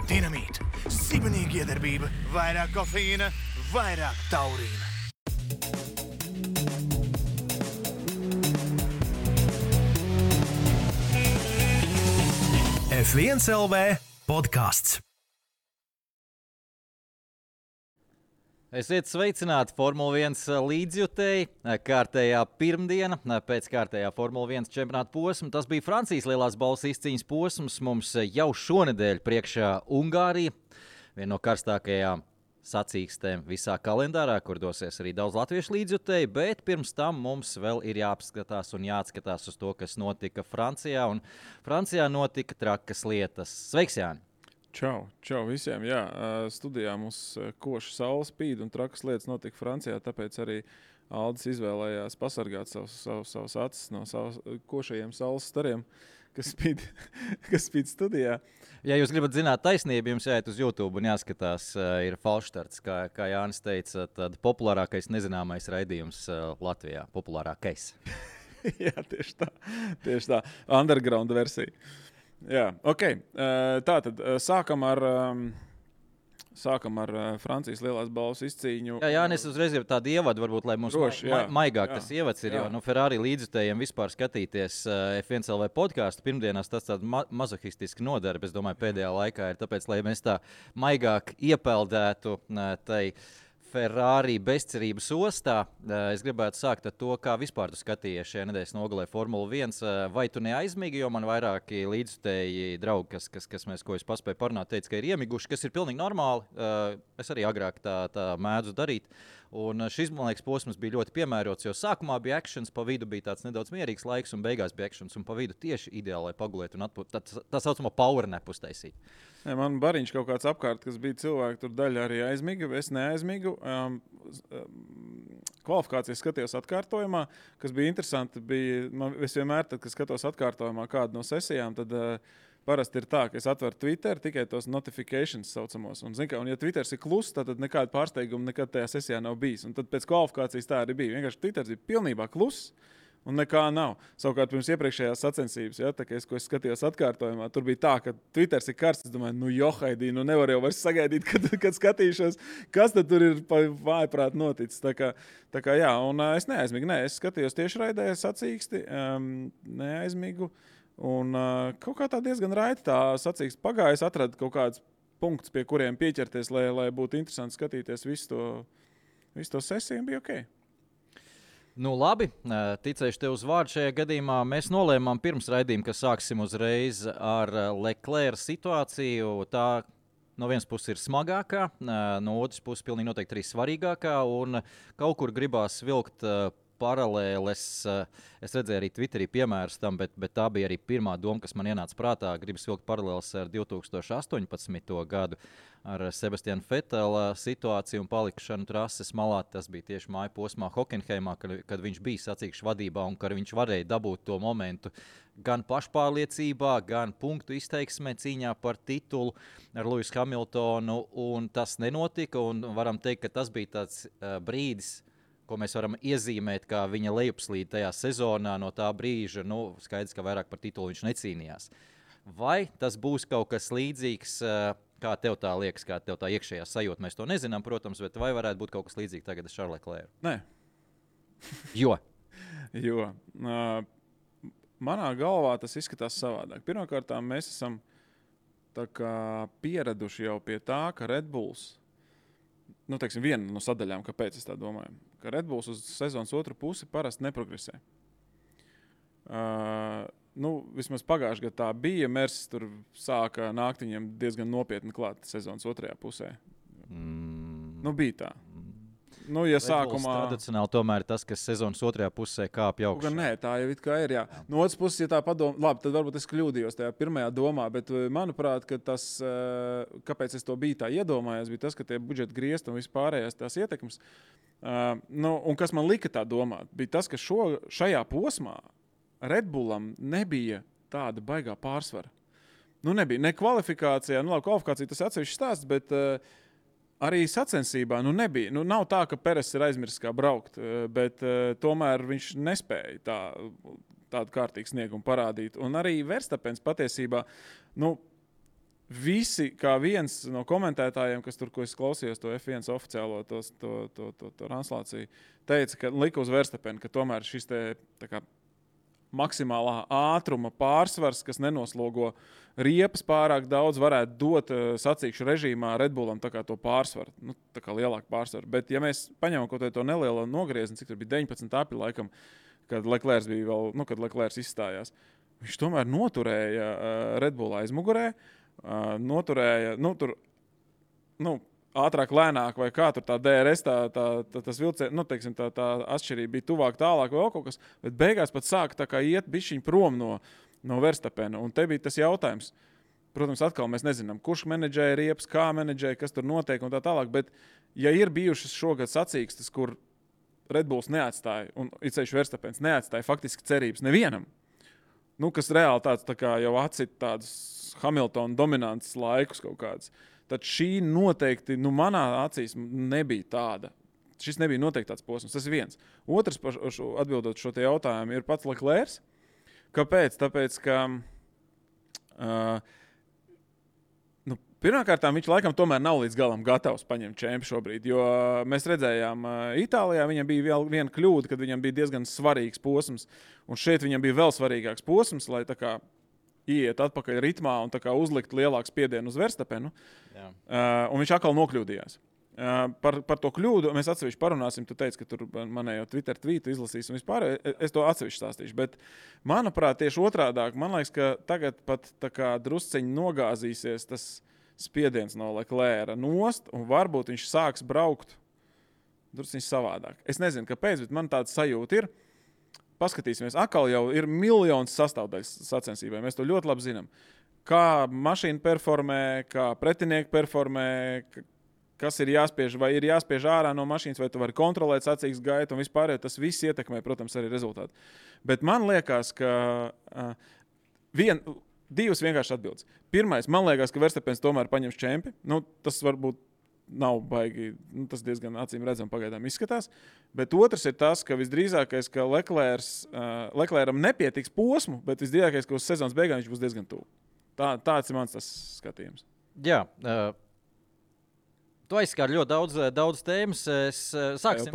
Dinamīta, sibenīga iedarbība, vairāk kofeīna, vairāk taurīna. F1 LV podcasts. Esiet sveicināti Formula 1 līdzjutēji. Kārtējā pirmdiena pēc kārtējā Formula 1 čempionāta posma. Tas bija Francijas lielās balvas izcīņas posms. Mums jau šonedēļ priekšā Ungārija, viena no karstākajām sacīkstēm visā kalendārā, kur dosies arī daudz latviešu līdzjutēji, bet pirms tam mums vēl ir jāapskatās un jāatskatās uz to, kas notika Francijā. Un Francijā notika trakas lietas. Sveiks, Jāni! Čau visiem. Jā, studijā mums koša saule spīd un trakas lietas notika Francijā, tāpēc arī Aldis izvēlējās pasargāt savus acis no košajiem saules stariem, kas spīd studijā. Ja jūs gribat zināt taisnību, jums jāiet uz YouTube un jāskatās, ir falšstarts, kā Jānis teica, tad populārākais nezināmais raidījums Latvijā. Populārākais. Jā, tieši tā. Underground versija. Jā, ok. Tātad sākam ar Francijas lielās balvas izcīņu. Jā, es uzreiz jau tādu ievadu, varbūt, lai mums maigāk tas ievads ir, jo Ferrari līdzjutējiem vispār skatīties F1 LV podcastu pirmdienās tas tāda mazohistiski nodarbe, es domāju, pēdējā laikā ir tāpēc, lai mēs tā maigāk iepeldētu tai Ferrari bezcerības ostā. Es gribētu sākt ar to, kā vispār tu skatījies šajā nedēļas nogalē Formula 1. Vai tu neaizmigi, jo man vairāki līdzjutēji draugi, ko es paspēju parunāt, teica, ka ir iemiguši, kas ir pilnīgi normāli. Es arī agrāk tā mēdzu darīt. Un šis, man liekas, posms bija ļoti piemērots, jo sākumā bija actions, pa vidu bija tāds nedaudz mierīgs laiks, un beigās bija actions, un pa vidu tieši ideāli, lai pagulētu un tā saucamo power nap uztaisīt. Man bariņš kaut kāds apkārt, kas bija cilvēki, tur daļa arī aizmiga, es neaizmigu. Kvalifikācijas skatījos atkārtojumā, kas bija interesanti. Es vienmēr, tad, kad skatos atkārtojumā kādu no sesijām, tad parasti ir tā, ka es atveru Twitter tikai tos notifications saucamos. Un ja Twitters ir kluss, tad nekāda pārsteiguma nekad tajā sesijā nav bijis. Un tad pēc kvalifikācijas tā arī bija. Vienkārši Twitters bija pilnībā kluss. Un nekā nav. Savukārt pirms iepriekšējās sacensības, ko es skatījos atkārtojumā, tur bija tā, ka Twitters ir karsts. Es domāju, johaidī, nevar jau vairs sagaidīt, kad skatīšos, kas tad tur ir vājprāt noticis. Tā kā jā, un es neaizmigu. Es skatījos tiešraidē sacīksti, neaizmigu. Un kaut kā tā diezgan raiti tā sacīksti pagāja. Es atradu kaut kādus punktus, pie kuriem pieķerties, lai būtu interesanti skatīties visu to sesiju, un bija ok. Nu, labi, ticēšu tev uz vārdu šajā gadījumā. Mēs nolēmām pirms raidījuma, ka sāksim uzreiz ar Leclerc situāciju. Tā no vienas puses ir smagākā, no otras puses pilnīgi noteikti arī svarīgākā. Un kaut kur gribās vilkt paralēles. Es redzēju arī Twitterī piemērus tam, bet tā bija arī pirmā doma, kas man ienāca prātā. Gribas vilkt paralēles ar 2018. gadu. Ar Sebastianu Vetela situāciju un palikšanu trases malā. Tas bija tieši māju posmā Hockenheimā, kad viņš bija sacīkšu vadībā un kad viņš varēja dabūt to momentu gan pašpārliecībā, gan punktu izteiksmē cīņā par titulu ar Lewisu Hamiltonu. Un tas nenotika, un varam teikt, ka tas bija tāds brīdis, ko mēs varam iezīmēt kā viņa lejupslīde tajā sezonā. No tā brīža, skaidrs, ka vairāk par titulu viņš necīnījās. Vai tas būs kaut kas līdzīgs? Kā tev tā liekas, kā tev tā iekšējā sajūta? Mēs to nezinām, protams, bet vai varētu būt kaut kas līdzīgs tagad ar Charles Leclerc? Nē. Jo? Manā galvā tas izskatās savādāk. Pirmkārt, mēs esam tā kā pieraduši jau pie tā, ka Red Bulls, viena no sadaļām, kāpēc es tā domāju, ka Red Bulls uz sezonas otru pusi parasti neprogresē. Vismaz pagājušajā gadā tā bija. Mercedes tur sāka nākt viņiem diezgan nopietni klāt sezonas otrajā pusē. Bija tā. Nu, ja sākumā tradicionāli tomēr tas, kas sezonas otrajā pusē kāpj augšā. Nē, tā jau it kā ir, jā. No otras puses, ja tā padomā, labi, tad varbūt es kļūdījos tajā pirmajā domā, bet manuprāt, ka tas, kāpēc es to biju tā iedomājies, bija tas, ka tie budžeta griezti un vispārējās tās ietekmes, un kas man lika tā domāt, bija tas, ka šajā posmā Red Bullam nebija tāda baigā pārsvara. Nu, nebija ne kvalifikācijā, labi, kvalifikācija tas atsevišķi stāsts, bet arī sacensībā nebija. Nu, nav tā, ka Peres ir aizmirsis kā braukt, bet tomēr viņš nespēja tādu kārtīgu sniegumu parādīt. Un arī Verstapens patiesībā, visi kā viens no komentētājiem, kas tur, ko es klausījos, to F1 oficiālo to translāciju, teica, ka lika uz Verstapenu, ka tomēr šis te tā kā maksimālā ātruma pārsvars, kas nenoslogo riepas pārāk daudz, varētu dot sacīkšu režīmā Red Bullam tā kā to pārsvaru, tā kā lielāku pārsvaru. Bet ja mēs paņemam kaut to nelielo nogriezni, cik tur bija 19 apļi laikam, kad Leclerc bija vēl, kad Leclerc izstājās, viņš tomēr noturēja Red Bull aizmugurē, noturēja, ātrāk, lēnāk, vai kā tur tā DRS, tas vilciens, teiksim, tā atšķirība bija tuvāk, tālāk vai kaut kas, bet beigās pat sāka tā kā iet bišķiņ prom no Verstapena. Un te bija tas jautājums, protams, atkal mēs nezinām, kurš menedžēja riepas, kā menedžēja, kas tur notiek un tā tālāk, bet ja ir bijušas šogad sacīkstes, kur Red Bulls neatstāja, un itsevišķi Verstapens neatstāja faktiski cerības nevienam, kas reāli tāds tā kā jau atcita tādus Hamiltona dominants laikus kaut kāds, tad šī noteikti, manā acīs nebija tāda. Šis nebija noteikti tāds posms. Tas ir viens. Otrs, atbildot šo te jautājumu, ir pats Leclerc. Kāpēc? Tāpēc, ka pirmkārt, viņš laikam tomēr nav līdz galam gatavs paņemt čempi šobrīd, jo mēs redzējām Itālijā, viņam bija viena kļūda, kad viņam bija diezgan svarīgs posms, un šeit viņam bija vēl svarīgāks posms, lai tā kā iet atpakaļ ritmā un tā kā uzlikt lielāku spiedienu uz Verstapenu. Un viņš atkal nokļūdījās. Par to kļūdu mēs atsevišķi parunāsim. Tu teici, ka tur manējo Twitter tvītu izlasīs un vispār. Es to atsevišķi stāstīšu. Bet, manuprāt, tieši otrādāk, man liekas, ka tagad pat tā kā drusciņi nogāzīsies tas spiediens no Leclerca nost, un varbūt viņš sāks braukt drusciņi savādāk. Es nezinu, kāpēc, bet man tāds sajūta ir. Paskatīsimies, atkal jau ir miljonas sastāvdaļas sacensībai. Mēs to ļoti labi zinām. Kā mašīna performē, kā pretinieki performē, kas ir jāspiež, vai ir jāspiež ārā no mašīnas, vai tu vari kontrolēt sacīkstes gaitu un vispār, tas viss ietekmē, protams, arī rezultātu. Bet man liekas, ka divas vienkārši atbildes. Pirmais, man liekas, ka Verstapens tomēr paņems čempi. Tas varbūt nav baigi, tas diezgan acīm redzam pagaidām izskatās. Bet otrs ir tas, ka visdrīzākais, ka Leclercam nepietiks posmu, bet visdrīzākais, ka uz sezonas beigām viņš būs diezgan tuvu. Tāds ir mans tas skatījums. Jā, tu aizskāri ļoti daudz tēmas. Sāksim,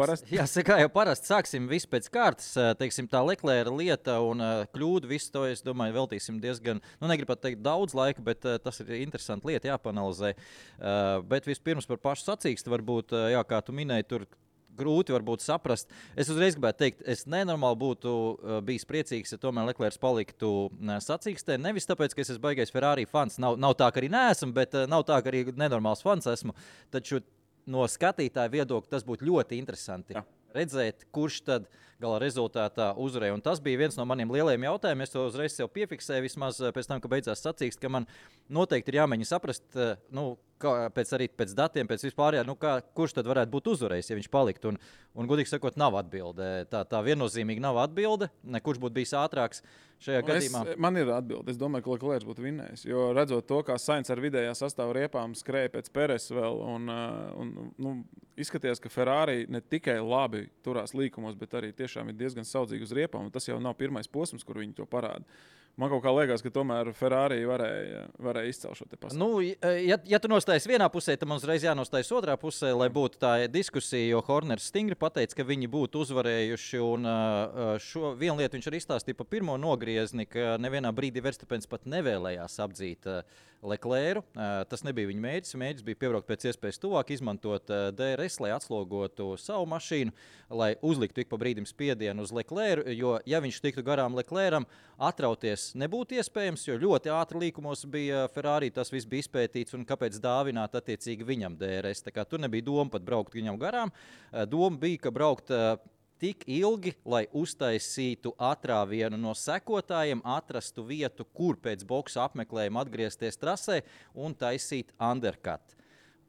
kā jau parasti, sāksim visu pēc kārtas. Teiksim, tā Leclerca lieta un kļūda, visu to, es domāju, veltīsim diezgan, negribu teikt daudz laika, bet tas ir interesanti lieta, jāpanalizē. Bet vispirms par pašu sacīksti, varbūt, kā tu minēji, tur grūti varbūt saprast. Es uzreiz gribētu teikt, es nenormāli būtu bijis priecīgs, ja tomēr Leclerc paliktu sacīkstē. Nevis tāpēc, ka es esmu baigais Ferrari fans. Nav tā, ka arī neesmu, bet nav tā, ka arī nenormāls fans esmu. Taču no skatītāja viedokļa tas būtu ļoti interesanti. Jā. Redzēt, kurš tad gala rezultātā uzvarēja. Un tas bija viens no maniem lielajiem jautājumiem. Es to uzreiz sev piefiksēju, vismaz pēc tam, ka beidzās sacīksts, ka man noteikti ir jāmēģina saprast, pēc datiem, pēc vispārējā, kurš tad varētu būt uzvarējis, ja viņš paliktu. Un godīgi sakot, nav atbilde. Tā viennozīmīgi nav atbilde. Kurš būtu bijis ātrāks šajā gadījumā? Man ir atbilde. Es domāju, ka Leclerc būtu vinnējis. Jo redzot to, kā Sainz ar vidējā sastāvu riepām skrēja pēc Peres vēl, un izskatījās, ka Ferrari ne tikai labi turās līkumos, bet arī tiešām ir diezgan saudzīgi uz riepām. Tas jau nav pirmais posms, kur viņi to parāda. Man kaut kā liekas, ka tomēr Ferrari varēja izcelt šo te pasauli. Ja tu nostājies vienā pusē, tad man uzreiz jānostājas otrā pusē, lai būtu tā diskusija, jo Horners stingri pateica, ka viņi būtu uzvarējuši. Un šo vienu lietu viņš arī izstāstīja pa pirmo nogriezni, ka nevienā brīdī Verstapens pat nevēlējās apdzīt Leclercu. Tas nebija viņa mērķis. Mērķis bija piebraukt pēc iespējas tuvāk, izmantot DRS, lai atslogotu savu mašīnu, lai uzliktu ik pa brīdim spiedienu uz Leclercu, jo, ja viņš tiktu garām Leclercam, atrauties nebūtu iespējams, jo ļoti ātri līkumos bija Ferrari, tas viss bija izpētīts, un kāpēc dāvināt attiecīgi viņam DRS. Tā kā tur nebija doma pat braukt viņam garām. Doma bija, ka braukt tik ilgi, lai uztaisītu atrāvienu no sekotājiem, atrastu vietu, kur pēc boksa apmeklējuma atgriezties trasē un taisīt undercut.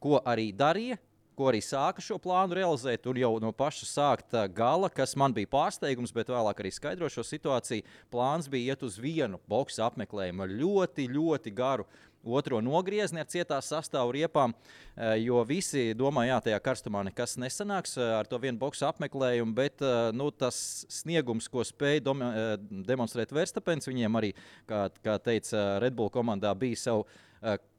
Ko arī darīja, ko arī sāka šo plānu realizēt, un jau no paša sākta gala, kas man bija pārsteigums, bet vēlāk arī skaidro šo situāciju, plāns bija iet uz vienu boksa apmeklējumu ar ļoti, ļoti garu otro nogriezni ar cietās sastāvu riepām, jo visi domāja, jā, tajā karstumā nekas nesanāks ar to vienu boksu apmeklējumu, bet tas sniegums, ko spēja demonstrēt Verstappens, viņiem arī, kā teica Red Bull komandā, bija savu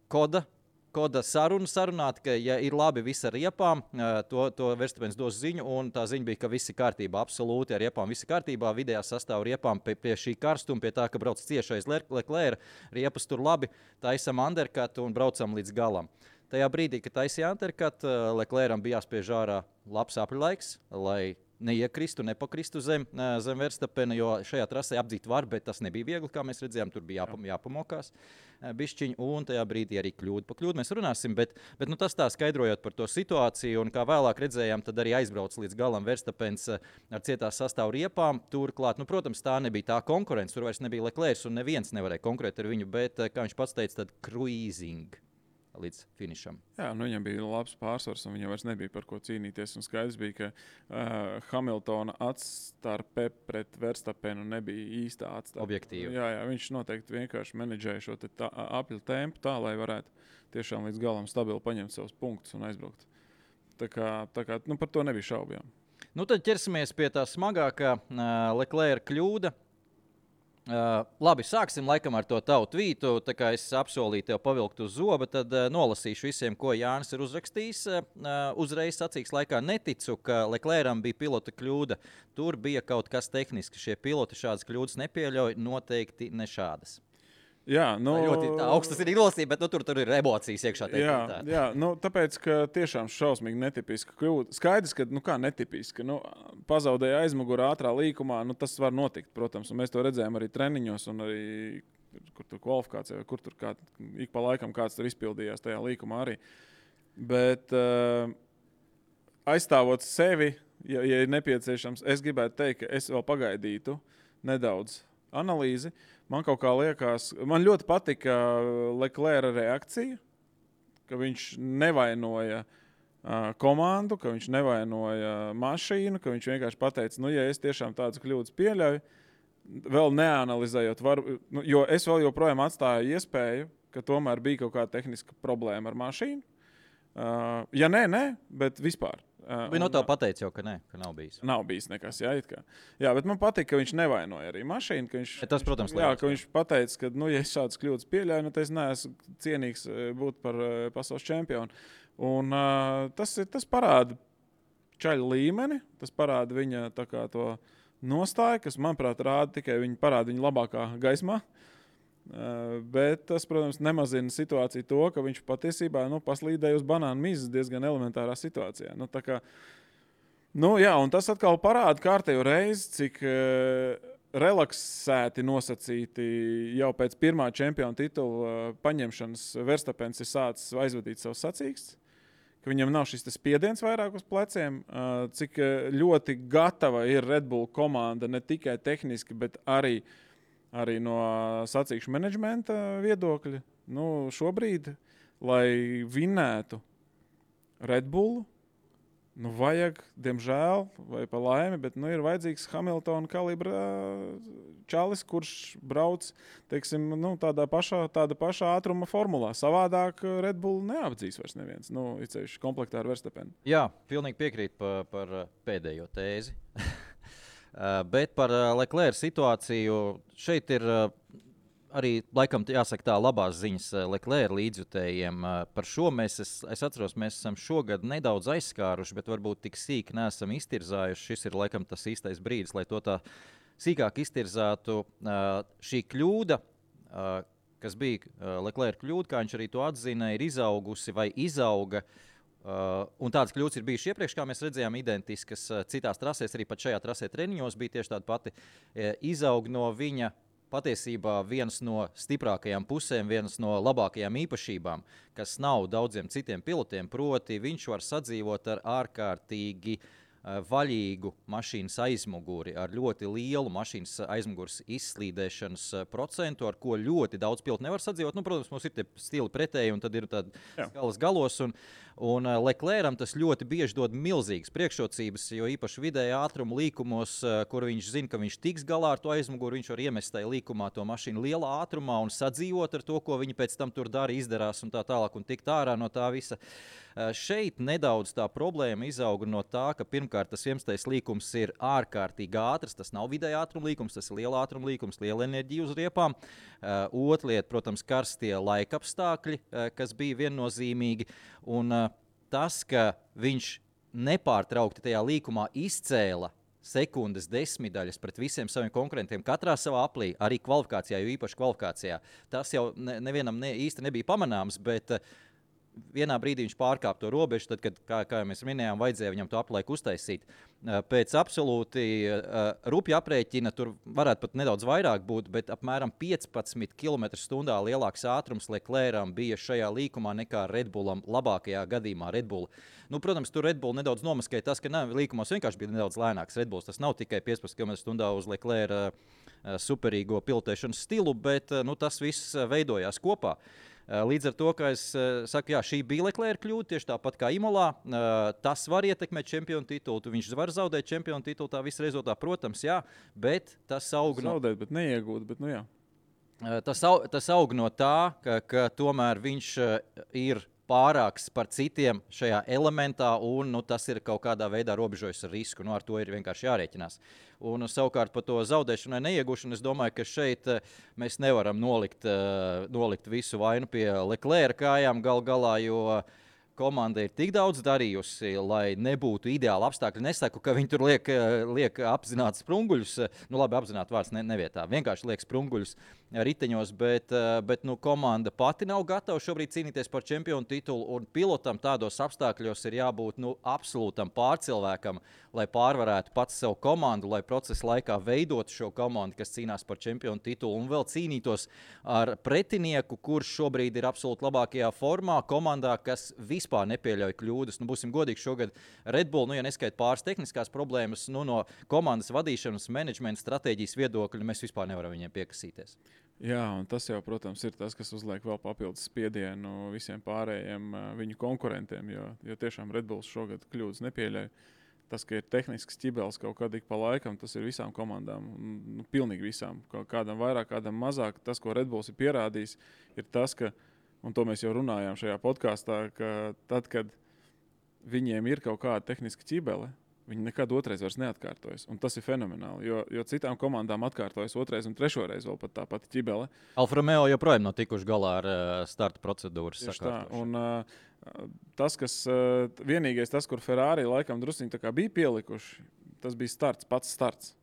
koda sarunāt, ka, ja ir labi viss ar riepām, to Verstappens dos ziņu, un tā ziņa bija, ka viss ir kārtībā, absolūti ar riepām, viss ir kārtībā, vidējā sastāvu riepām pie šī karstuma, pie tā, ka brauc ciešais Leclerc, riepas tur labi, taisam undercut un braucam līdz galam. Tajā brīdī, kad taisīja undercut, Leclercam bija jāspiež ārā labs apļlaiks, lai neiekristu, nepakristu zem Verstappena, jo šajā trasē apdzīt var, bet tas nebija viegli, kā mēs redzējām, tur bija jāpamokās bišķiņi, un tajā brīdī arī kļūda. Pa kļūdu mēs runāsim, bet tas tā skaidrojot par to situāciju, un kā vēlāk redzējām, tad arī aizbrauc līdz galam Verstappens ar cietās sastāvu riepām. Turklāt, protams, tā nebija tā konkurence, tur vairs nebija Leclerc, un neviens nevarēja konkurēt ar viņu, bet, kā viņš pats teica, tad cruising līdz finišam. Jā, viņam bija labs pārsvars, un viņam vairs nebija par ko cīnīties. Un skaidrs bija, ka Hamiltona atstarpe pret Verstappenu nebija īstā atstarpe. Objektīvi. Jā, viņš noteikti vienkārši menedžēja šo apļu tempu tā, lai varētu tiešām līdz galam stabili paņemt savus punktus un aizbraukt. Tā kā par to nebija šaubu. Tad ķersimies pie tā smagākā Leclerca kļūda. Labi, sāksim laikam ar to tavu tvītu. Tā kā es apsolīju tev pavilkt uz zoba, tad nolasīšu visiem, ko Jānis ir uzrakstījis. Uzreiz sacīks laikā neticu, ka Leclercam bija pilota kļūda. Tur bija kaut kas tehniski. Šie piloti šādas kļūdas nepieļauj, noteikti ne šādas. Jā, ļoti augstas ir nolasība, bet tur ir emocijas iekšā. Jā, tāpēc, ka tiešām šausmīgi netipiska kļūda. Skaidrs, ka, netipiska. Pazaudēja aizmugurā ātrā līkumā, tas var notikt, protams. Un mēs to redzējām arī treniņos un arī, kur tur kvalifikācijā, kur tur ik pa laikam kāds tur izpildījās tajā līkumā arī. Bet aizstāvot sevi, ja ir nepieciešams, es gribētu teikt, ka es vēl pagaidītu nedaudz analīzi. Man kaut kā liekas, man ļoti patika Leclerca reakcija, ka viņš nevainoja komandu, ka viņš nevainoja mašīnu, ka viņš vienkārši pateica, ja es tiešām tādas kļūdas pieļauju, vēl neanalizējot, jo es vēl joprojām atstāju iespēju, ka tomēr bija kaut kāda tehniska problēma ar mašīnu. Ja nē, bet vispār. Viņa no tev pateica jau, ka nav bijis. Nav bijis nekas, it kā. Jā, bet man patīk, ka viņš nevainoja arī mašīnu. Tas, protams, ka viņš pateica, ka, ja es šādas kļūdas pieļauju, tad es neesmu cienīgs būt par pasaules čempionu. Un tas parāda čaļa līmeni, tas parāda viņa to nostāju, kas, manuprāt, parāda viņa labākā gaismā. Bet tas, protams, nemazina situāciju to, ka viņš patiesībā paslīdēja uz banānu mizas diezgan elementārā situācijā. Un tas atkal parāda kārtējo reizi, cik relaksēti nosacīti jau pēc pirmā čempiona titula paņemšanas Verstappens ir sācis aizvadīt savus sacīkstus, ka viņam nav šis spiediens vairāk uz pleciem, cik ļoti gatava ir Red Bull komanda ne tikai tehniski, bet arī no sacīkšu menedžmenta viedokļa. Šobrīd, lai vinētu Red Bullu, vajag, diemžēl, vai pa laimi, bet ir vajadzīgs Hamiltona kalibra čalis, kurš brauc, teiksim, tāda pašā ātruma formulā. Savādāk Red Bull neapdzīs vairs neviens, ceļš komplektā ar Verstappenu. Jā, pilnīgi piekrīt par pēdējo tēzi. Bet par Leclerca situāciju šeit ir arī, laikam, jāsaka tā labās ziņas Leclerca līdzjutējiem. Par šo es atceros, mēs esam šogad nedaudz aizskāruši, bet varbūt tik sīki neesam iztirzājuši. Šis ir, laikam, tas īstais brīdis, lai to tā sīkāk iztirzātu. Šī kļūda, kas bija Leclerc kļūda, kā viņš arī to atzina, ir izaugusi vai izauga. Un tādas kļūdas ir bijušas iepriekš, kā mēs redzējām, identiskas citās trasēs, arī pat šajā trasē treniņos bija tieši tāda pati. Izaug no viņa patiesībā viens no stiprākajām pusēm, viens no labākajām īpašībām, kas nav daudziem citiem pilotiem, proti viņš var sadzīvot ar ārkārtīgi vaļīgu mašīnas aizmuguri, ar ļoti lielu mašīnas aizmugures izslīdēšanas procentu, ar ko ļoti daudz pilotu nevar sadzīvot. Nu, protams, mums ir tie stili pretēji, un tad ir tādi skalas galos, un Leclercam tas ļoti bieži dod milzīgas priekšrocības, jo īpaši vidēja ātruma līkumos, kur viņš zina, ka viņš tiks galā ar to aizmuguri, viņš var iemest tajā līkumā to mašīnu lielā ātrumā un sadzīvot ar to, ko viņi pēc tam tur dara, izdarās un tā tālāk, un tikt ārā no tā visa. Šeit nedaudz tā problēma izauga no tā, ka pirmkārt tas 11. līkums ir ārkārtīgi ātrs, tas nav vidēja ātruma līkums, tas ir liela ātruma līkums, liela enerģija uz riepām. Otra lieta, protams, karstie laikapstākļi, kas bija viennozīmīgi, un tas, ka viņš nepārtraukti tajā līkumā izcēla sekundes desmitdaļas pret visiem saviem konkurentiem katrā savā aplī, arī kvalifikācijā, jo īpaši kvalifikācijā. Tas jau nevienam īsti nebija pamanāms, bet vienā brīdī viņš pārkāpa to robežu, tad, kad, kā jau mēs minējām, vajadzēja viņam to aplaiku uztaisīt. Pēc absolūti rupja aprēķina, tur varētu pat nedaudz vairāk būt, bet apmēram 15 km/h lielāks ātrums Leclercam bija šajā līkumā nekā Red Bullam, labākajā gadījumā Red Bull. Nu, protams, tur Red Bull nedaudz nomaskēja tas, ka līkumos vienkārši bija nedaudz lēnāks Red Bulls. Tas nav tikai 15 km/h uz Leclerca superīgo pilotēšanas stilu, bet tas viss veidojās kopā. Līdz ar to, ka es saku, jā, šī bija Leclerca kļūda, tieši tāpat kā Imolā. Tas var ietekmēt čempionu titulu, viņš var zaudēt čempionu titulu, tā visa rezultātā, protams, jā, bet tas aug no... Zaudēt, bet neiegūt, bet nu jā. Tas aug no tā, ka tomēr viņš ir pārāks par citiem šajā elementā, un tas ir kaut kādā veidā robežojas ar risku. Ar to ir vienkārši jārēķinās. Un savukārt par to zaudēšanu vai neiegūšanu, es domāju, ka šeit mēs nevaram nolikt visu vainu pie Leclerca kājām gal galā, jo komanda ir tik daudz darījusi, lai nebūtu ideāli apstākļi. Nesaku, ka viņi tur liek apzināti sprunguļus, labi, apzināti vārds nevietā, vienkārši liek sprunguļus riteņos, bet komanda pati nav gatava šobrīd cīnīties par čempionu titulu, un pilotam tādos apstākļos ir jābūt absolūtam pārcilvēkam, lai pārvarētu pats savu komandu, lai procesa laikā veidotu šo komandu, kas cīnās par čempionu titulu, un vēl cīnītos ar pretinieku, kurš šobrīd ir absolūti labākajā formā, komandā, kas vispār nepieļauj kļūdas. Būsim godīgi, šogad Red Bull, ja neskait pāris tehniskās problēmas, no komandas vadīšanas, menedžmenta stratēģijas viedokļa, mēs vispār nevaram viņiem piekasīties. Jā, un tas jau, protams, ir tas, kas uzliek vēl papildus spiedienu visiem pārējiem viņu konkurentiem, jo tiešām Red Bulls šogad kļūdas nepieļauj. Tas, ka ir tehnisks ķibelis kaut kad ik pa laikam, tas ir visām komandām, pilnīgi visām. Kādam vairāk, kādam mazāk. Tas, ko Red Bulls ir pierādījis, ir tas, ka, un to mēs jau runājām šajā podkāstā, ka tad, kad viņiem ir kaut kāda tehniska ķibele, viņi nekad otrais vairs neatkārtojas. Un tas ir fenomenāli, jo citām komandām atkārtojas otrais un trešoreiz vēl pat tā pati ķibele. Alfa Romeo joprojām nav tikuši galā ar starta procedūras sakārtošanu. Tas, vienīgais tas, kur Ferrari laikam drusciņi tā kā bija pielikuši, tas bija pats starts.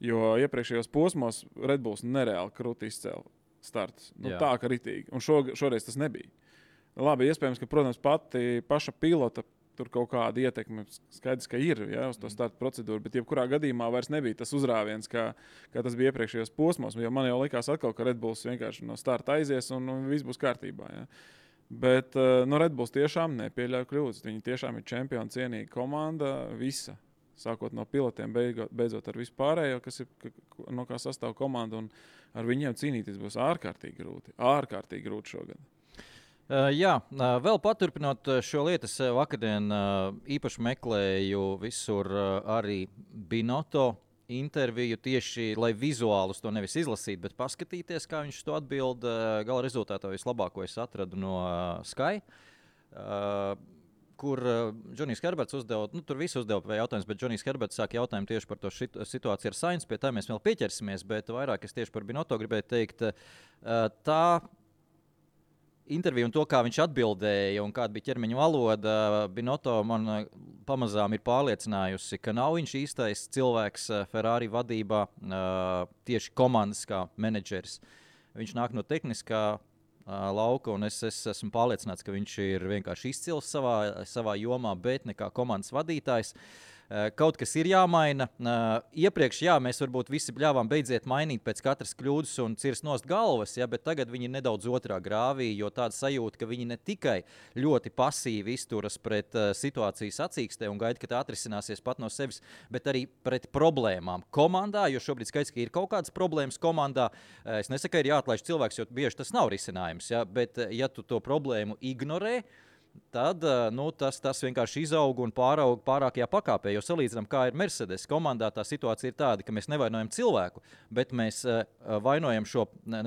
Jo iepriekšējos posmos Red Bulls nereāli krūti izcēla startus. Tā kā ritīgi. Un šoreiz tas nebija. Labi, iespējams, ka, protams, paša pilota tur kaut kāda ietekme, skaidrs, ka ir uz to starta procedūru, bet jebkurā gadījumā vairs nebija tas uzrāviens, kā tas bija iepriekšējos posmos. Jo man jau likās atkal, ka Red Bulls vienkārši no starta aizies un viss būs kārtībā. Ja. Bet Red Bulls tiešām nepieļauj kļūdas. Viņi tiešām ir čempionu cienīga komanda, visa. Sākot no pilotiem, beidzot ar vispārējo, kas ir, no kā sastāv komanda, un ar viņiem cīnīties būs ārkārtīgi grūti šogad. Jā, vēl paturpinot šo lietu, es vakardien īpaši meklēju visur arī Binotto interviju tieši, lai vizuālus to nevis izlasītu, bet paskatīties, kā viņš to atbild. Gala rezultātā vislabāko es atradu no Sky, kur Džonijs Herberts uzdeva, tur visi uzdeva jautājumus, bet Džonijs Herberts sāk jautājumu tieši par to situāciju ar Sainz, pie tā mēs vēl pieķersimies, bet vairāk es tieši par Binotto gribēju teikt, tā interviju un to, kā viņš atbildēja un kāda bija ķermeņa valoda, Binotto man pamazām ir pārliecinājusi, ka nav viņš īstais cilvēks Ferrari vadībā, tieši komandas kā menedžeris. Viņš nāk no tehniskā lauka, un es esmu pārliecināts, ka viņš ir vienkārši izcils savā jomā, bet ne kā komandas vadītājs. Kaut kas ir jāmaina. Iepriekš, mēs varbūt visi bļāvām beidziet mainīt pēc katras kļūdas un cirst nost galvas, bet tagad viņi ir nedaudz otrā grāvī, jo tāda sajūta, ka viņi ne tikai ļoti pasīvi izturas pret situācijas sacīkstē un gaida, ka tā atrisināsies pat no sevis, bet arī pret problēmām komandā, jo šobrīd skaidrs, ka ir kaut kādas problēmas komandā. Es nesaku, ka ir jāatlaiž cilvēks, jo bieži tas nav risinājums, bet ja tu to problēmu ignorē, tad tas vienkārši izaug un pāraug pārākajā pakāpē. Jo salīdzinām, kā ir Mercedes komandā, tā situācija ir tāda, ka mēs nevainojam cilvēku, bet mēs vainojam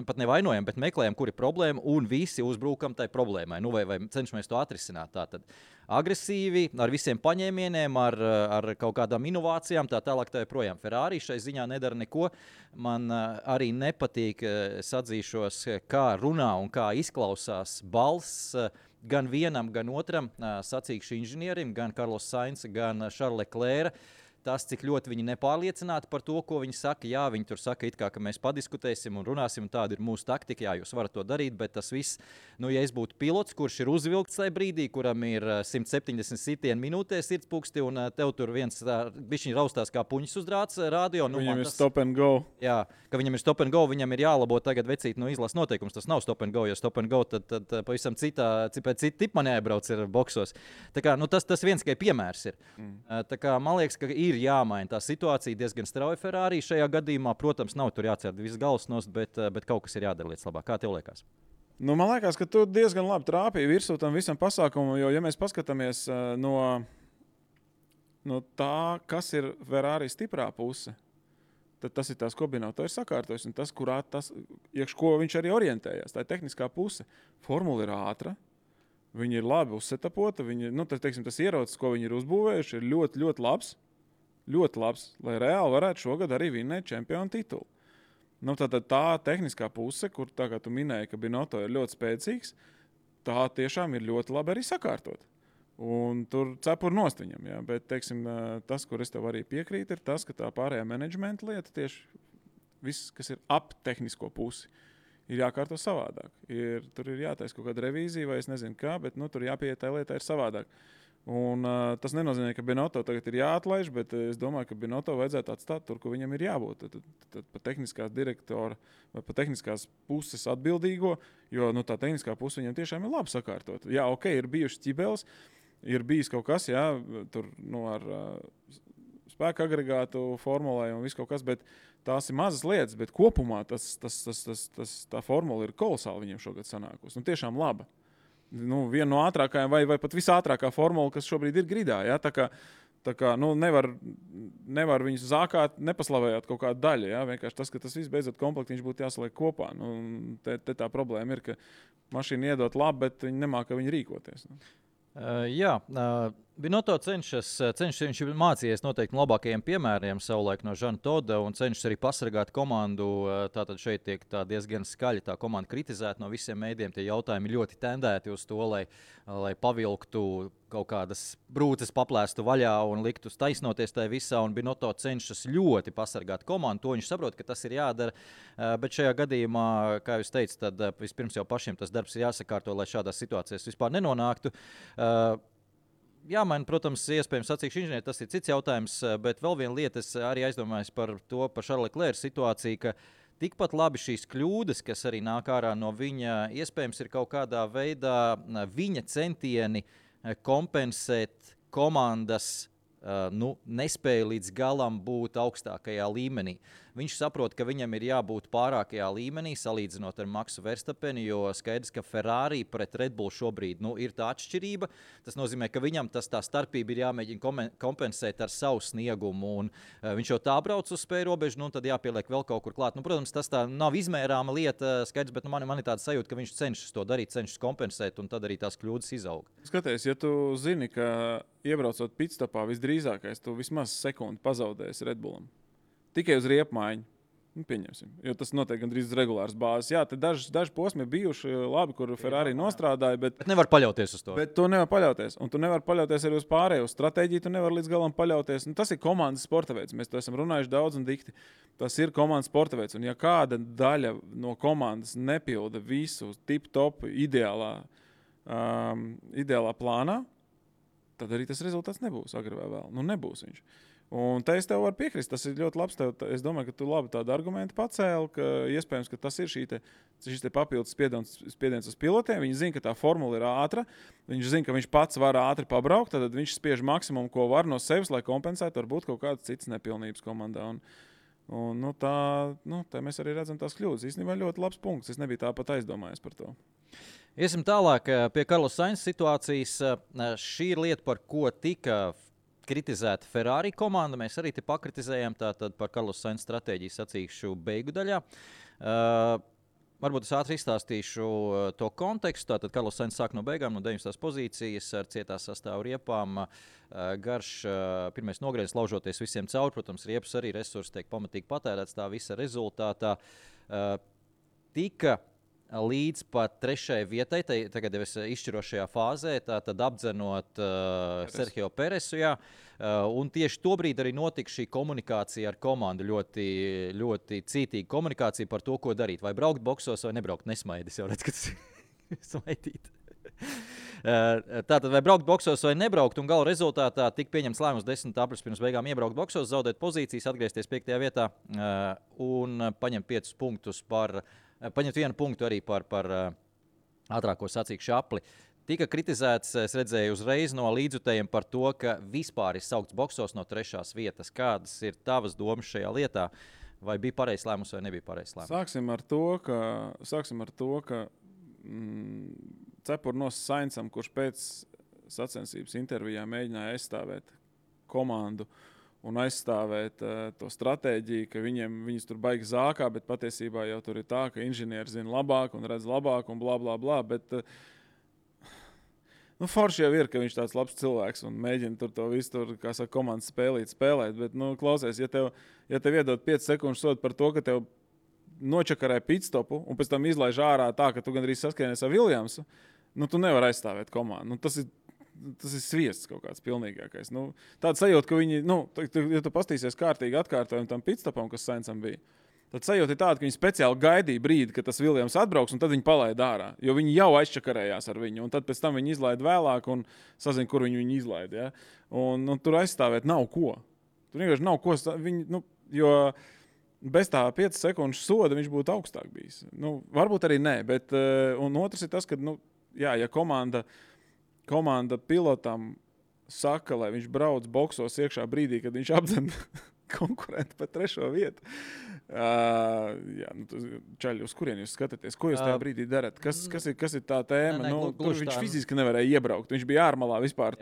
pat nevainojam, bet meklējam, kur ir problēma, un visi uzbrukam tai problēmai. Vai cenšamies to atrisināt. Tātad agresīvi, ar visiem paņēmieniem, ar kaut kādām inovācijām, tā tālāk tā joprojām. Ferrari šai ziņā nedara neko. Man arī nepatīk, es atzīšos, kā runā un kā izklausās balss gan vienam, gan otram sacīkšu inženierim, gan Carlos Sainz, gan Charles Leclerc. Tas, cik ļoti viņi nepārliecināti par to, ko viņi saka. Jā, viņi tur saka, it kā, ka mēs padiskutēsim un runāsim, un tāda ir mūsu taktika. Jā, jūs varat to darīt, bet tas viss, ja es būtu pilots, kurš ir uzvilkts tajā brīdī, kuram ir 170 sitieni minūtē sirdspūksti, un tev tur viens bišķiņ raustās kā puņas uz drāts radio. Viņam ir stop and go. Jā, ka viņam ir stop and go, viņam ir jālabo tagad vecīt izlases noteikums. Tas nav stop and go, jo stop and go tad pavisam cita tipa man jāiebrauc ir boksos. Tā kā, tas viens tikai piemērs ir. Tā kā, man liekas, ka ir jāmaina tā situācija diezgan strauji Ferrari šajā gadījumā. Protams, nav tur jācer viss galvas nost, bet kaut kas ir jādara lietas labāk. Kā tev liekas? Man liekas, ka tu diezgan labi trāpīji virsū tam visam pasākumam, jo, ja mēs paskatāmies no tā, kas ir Ferrari stiprā puse, tad tas ir tas, ko Binotto ir sakārtojis, un tas, iekš ko viņš arī orientējās. Tā ir tehniskā puse. Formula ir ātra. Viņi ir labi uzsetapota. Tas ierocis, ko viņi ir uzbūvējuši, ir ļoti, ļoti labs. Ļoti labs, lai reāli varētu šogad arī vinnēt čempionu titulu. Tātad tā tehniskā puse, kur tā kā tu minēji, ka Binotto ir ļoti spēcīgs, tā tiešām ir ļoti labi arī sakārtot. Un tur cepur nost viņam, jā. Bet, teiksim, tas, kur es tev arī piekrītu, ir tas, ka tā pārējā menedžmenta lieta tieši viss, kas ir ap tehnisko pusi, ir jākārto savādāk. Tur ir jātaisa kaut kāda revīzija vai es nezinu kā, bet tur jāpieiet tā lietā ir savādāk. Un tas nenozīmē, ka Binotto tagad ir jāatlaiž, bet es domāju, ka Binotto vajadzētu atstāt tur, kur viņam ir jābūt. Tad pa tehniskās direktora vai pa tehniskās puses atbildīgo, jo tā tehniskā puse viņam tiešām ir labi sakārtot. Jā, ok, ir bijušas ķibeles, ir bijis kaut kas, jā, tur ar spēka agregātu formulē un viss kaut kas, bet tās ir mazas lietas, bet kopumā tā formula ir kolosāli viņiem šogad sanākusi. Tiešām laba. Viena no ātrākajām vai pat visātrākā formula, kas šobrīd ir gridā. Ja? Tā kā nevar viņus zākāt, nepaslavējot kaut kādu daļu. Ja? Vienkārši tas, ka tas viss beidzot komplektiņš būtu jāsaliek kopā. Te tā problēma ir, ka mašīna iedot labi, bet viņi nemāka viņu rīkoties. Binotto cenšas, viņš ir mācījies noteikti no labākajiem piemēriem savulaik no Žana Toda un cenšas arī pasargāt komandu. Tātad šeit tiek diezgan skaļi tā komanda kritizēta no visiem mēdiem. Tie jautājumi ļoti tendēti uz to, lai pavilktu kaut kādas brūces, paplēstu vaļā un liktu taisnoties tajā visā. Un Binotto cenšas ļoti pasargāt komandu. To viņš saprot, ka tas ir jādara. Bet šajā gadījumā, kā jūs teicat, tad vispirms jau pašiem tas darbs ir jāsakārto, lai šādās situācijās vispār nenonāktu. Jāmaina, protams, iespējams sacīkšu inženieri, tas ir cits jautājums, bet vēl viena lieta, es arī aizdomājos par Charles Leclerc situāciju, ka tikpat labi šīs kļūdas, kas arī nāk ārā no viņa, iespējams ir kaut kādā veidā viņa centieni kompensēt komandas nespēja līdz galam būt augstākajā līmenī. Viņš saprot, ka viņam ir jābūt pārākajā līmenī, salīdzinot ar Maksu Verstappeni, jo skaidrs, ka Ferrari pret Red Bull šobrīd ir tā atšķirība. Tas nozīmē, ka viņam tā starpība ir jāmēģina kompensēt ar savu sniegumu, un viņš jau tā brauc uz spēju robežu, tad jāpieliek vēl kaut kur klāt. Protams, tas tā nav izmērāma lieta, skaidrs, bet man ir tāda sajūta, ka viņš cenšas to darīt, cenšas kompensēt, un tad arī tās kļūdas izaug. Skaties, ja tu zini, ka iebraucot pitstopā visdrīzākais, tu vismaz sekundi pazaudēsi Red Bullam. Tikai uz riepmaiņu. Pieņemsim, jo tas notiek gandrīz regulārs bāzes. Jā, te daži posmi ir bijuši labi, kur Ferrari nostrādāja, bet nevar paļauties uz to. Bet tu nevar paļauties, un tu nevar paļauties arī uz pārējo stratēģiju, tu nevar līdz galam paļauties. Tas ir komandas sporta veids, mēs to esam runājuši daudz un dikti. Tas ir komandas sporta veids, un ja kāda daļa no komandas nepilda visu tip-top ideālā plānā, tad arī tas rezultāts nebūs agri vai vēl. Nebūs viņš. Un te es tev varu piekrist, tas ir ļoti labs. Es domāju, ka tu labi tādu argumentu pacēli, ka iespējams, ka tas ir šis papildus spiediens uz pilotiem. Viņi zina, ka tā formula ir ātra, viņš zina, ka viņš pats var ātri pabraukt, tad viņš spiež maksimumu, ko var no sevis, lai kompensētu varbūt kaut kādas citas nepilnības komandā. Tā mēs arī redzam tās kļūdas. Īstenībā ļoti labs punkts, es nebiju tāpat aizdomājies par to. Iesim tālāk pie Carlos Sainz situācijas. Šī ir lieta, par ko tika kritizēta Ferrari komanda. Mēs arī te pakritizējām tātad par Carlos Sainz stratēģiju sacīkšu beigu daļā. Varbūt es ātri izstāstīšu to kontekstu. Tātad Carlos Sainz sāk no beigām, no 9. pozīcijas ar cietās sastāvu riepām. Garš pirmais nogrieziens laužoties visiem cauri. Protams, riepas arī resursi tiek pamatīgi patērēts tā visa rezultātā. Tika līdz pat 3. vietai, tagad jau es izšķirošajā fāzē, tātad apdzenot Sergio Peresu. Un tieši tobrīd arī notika šī komunikācija ar komandu. Ļoti, ļoti cītīga komunikācija par to, ko darīt. Vai braukt boksos vai nebraukt. Nesmaidis jau redz, ka tas ir smaidīt. Tātad vai braukt boksos vai nebraukt, un gala rezultātā tika pieņemts lēmums 10. aprīļa pirms beigām iebraukt boksos, zaudēt pozīcijas, atgriezties 5. vietā un paņemt 5 punktus paņemt 1 punktu arī par ātrāko sacīkšu apli. Tika kritizēts, es redzēju uzreiz no līdzjutējiem par to, ka vispār ir saukts boksos no 3. vietas. Kādas ir tavas domas šajā lietā? Vai bija pareizs lēmums vai nebija pareizs lēmums? Sāksim ar to, ka cepurnos Sainzam, kurš pēc sacensības intervijā mēģināja aizstāvēt komandu un aizstāvēt to stratēģiju, ka viņus tur baigi zākā, bet patiesībā jau tur ir tā, ka inženieri zina labāk un redz labāk un blā, blā, blā. Bet forši jau ir, ka viņš tāds labs cilvēks un mēģina tur to visu, kā saka, komandas spēlēt. Bet, klausies, ja tev iedod 5 sekundes sodu par to, ka tev nočakarē pitstopu un pēc tam izlaiž ārā tā, ka tu gandrīz saskaries ar Williamsu, tu nevari aizstāvēt komandu. Tas ir sviests kaut kāds pilnīgākais. Tāda sajūta, ka viņi, ja tu pastīsies kārtīgi atkārtojumu tam pitstopam, kas Sainzam bija, tad sajūta ir tāda, ka viņi speciāli gaidīja brīdi, kad tas Williams atbrauks, un tad viņi palaida ārā, jo viņi jau aizčakarējās ar viņu, un tad pēc tam viņi izlaida vēlāk un sazina, kur viņu izlaida. Ja? Un tur aizstāvēt nav ko. Tur vienkārši nav ko, jo bez tā 5 sekundžu soda viņš būtu augstāk bijis. Varbūt arī nē, bet un otrs ir tas, ka, ja komanda pilotam saka, lai viņš brauc boksos iekšā brīdī, kad viņš apdzen konkurentu par 3. vietu. Čaļi, uz kurien jūs skatāties? Ko jūs tajā brīdī darat? Kas ir tā tēma? Viņš fiziski nevarēja iebraukt. Viņš bija ārmalā vispār.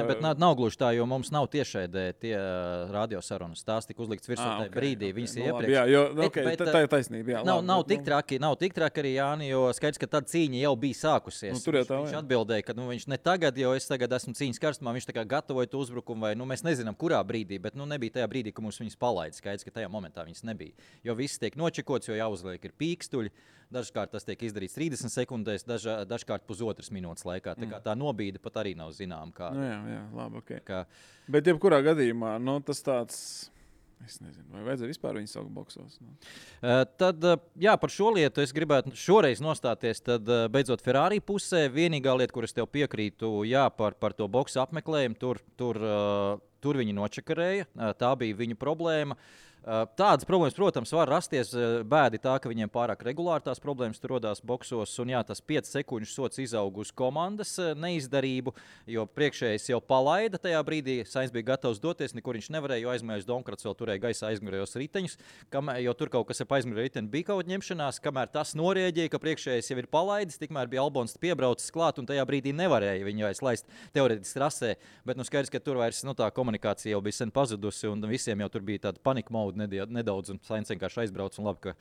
Bet nav gluži tā, jo mums nav tiešraidē tie radiosarunas. Tās tika uzlikts virsū tajā brīdī. Viņas ir iepriekš. Tā ir taisnība. Nav tik traki arī, Jāni, jo skaidrs, ka tad cīņa jau bija sākusies. Viņš atbildēja, ka viņš ne tagad, jo es tagad esmu cīņas karstumā, viņš tā kā gatavoja to uzbrukumu, vai mēs nezinām, kurā brīdī, bet nebija tajā brīdī, ka mums viņas palaida. Skaidrs, ka tajā momentā viņas nebija. Jo viss tiek nočekots, jo jāuzliek ir pīkstuļi. Dažkārt tas tiek izdarīts 30 sekundēs, dažkārt pusotras minūtes laikā. Tā nobīde pat arī nav zinām. Jā, labi, ok. Bet jebkurā gadījumā, tas tāds, es nezinu, vai vajadzēja vispār viņu saukt boksos. Tad, par šo lietu es gribētu šoreiz nostāties, tad beidzot Ferrari pusē. Vienīgā lieta, kur es tev piekrītu, par to boksu apmeklējumu, tur viņi nočakarēja. Tā bija viņu problēma. Tādas problēmas, protams, var rasties. Bēdi tā, ka viņiem pārāk regulāri tās problēmas tur rodās boksos. Un tas 5 sekundžu sots izaug uz komandas neizdarību, jo priekšējais jau palaida tajā brīdī. Sainz bija gatavs doties, nekur viņš nevarēja, jo aizmugurējais Donkrats vēl turēja gaisā aizmugurējos riteņus. Jo tur kaut kas ar aizmugurējo riteni bija kaut ņemšanās, kamēr tas norēģēja, ka priekšējais jau ir palaidis, tikmēr bija Albons piebraucis klāt un tajā brīdī nevarēja viņu aizlaist teorētiski trasē. Bet skaidrs, ka tur vairs tā komunikācija jau bija sen pazudusi, un visiem jau tur bija tāda panika mode nedaudz, un Sainz vienkārši aizbrauc, un labi,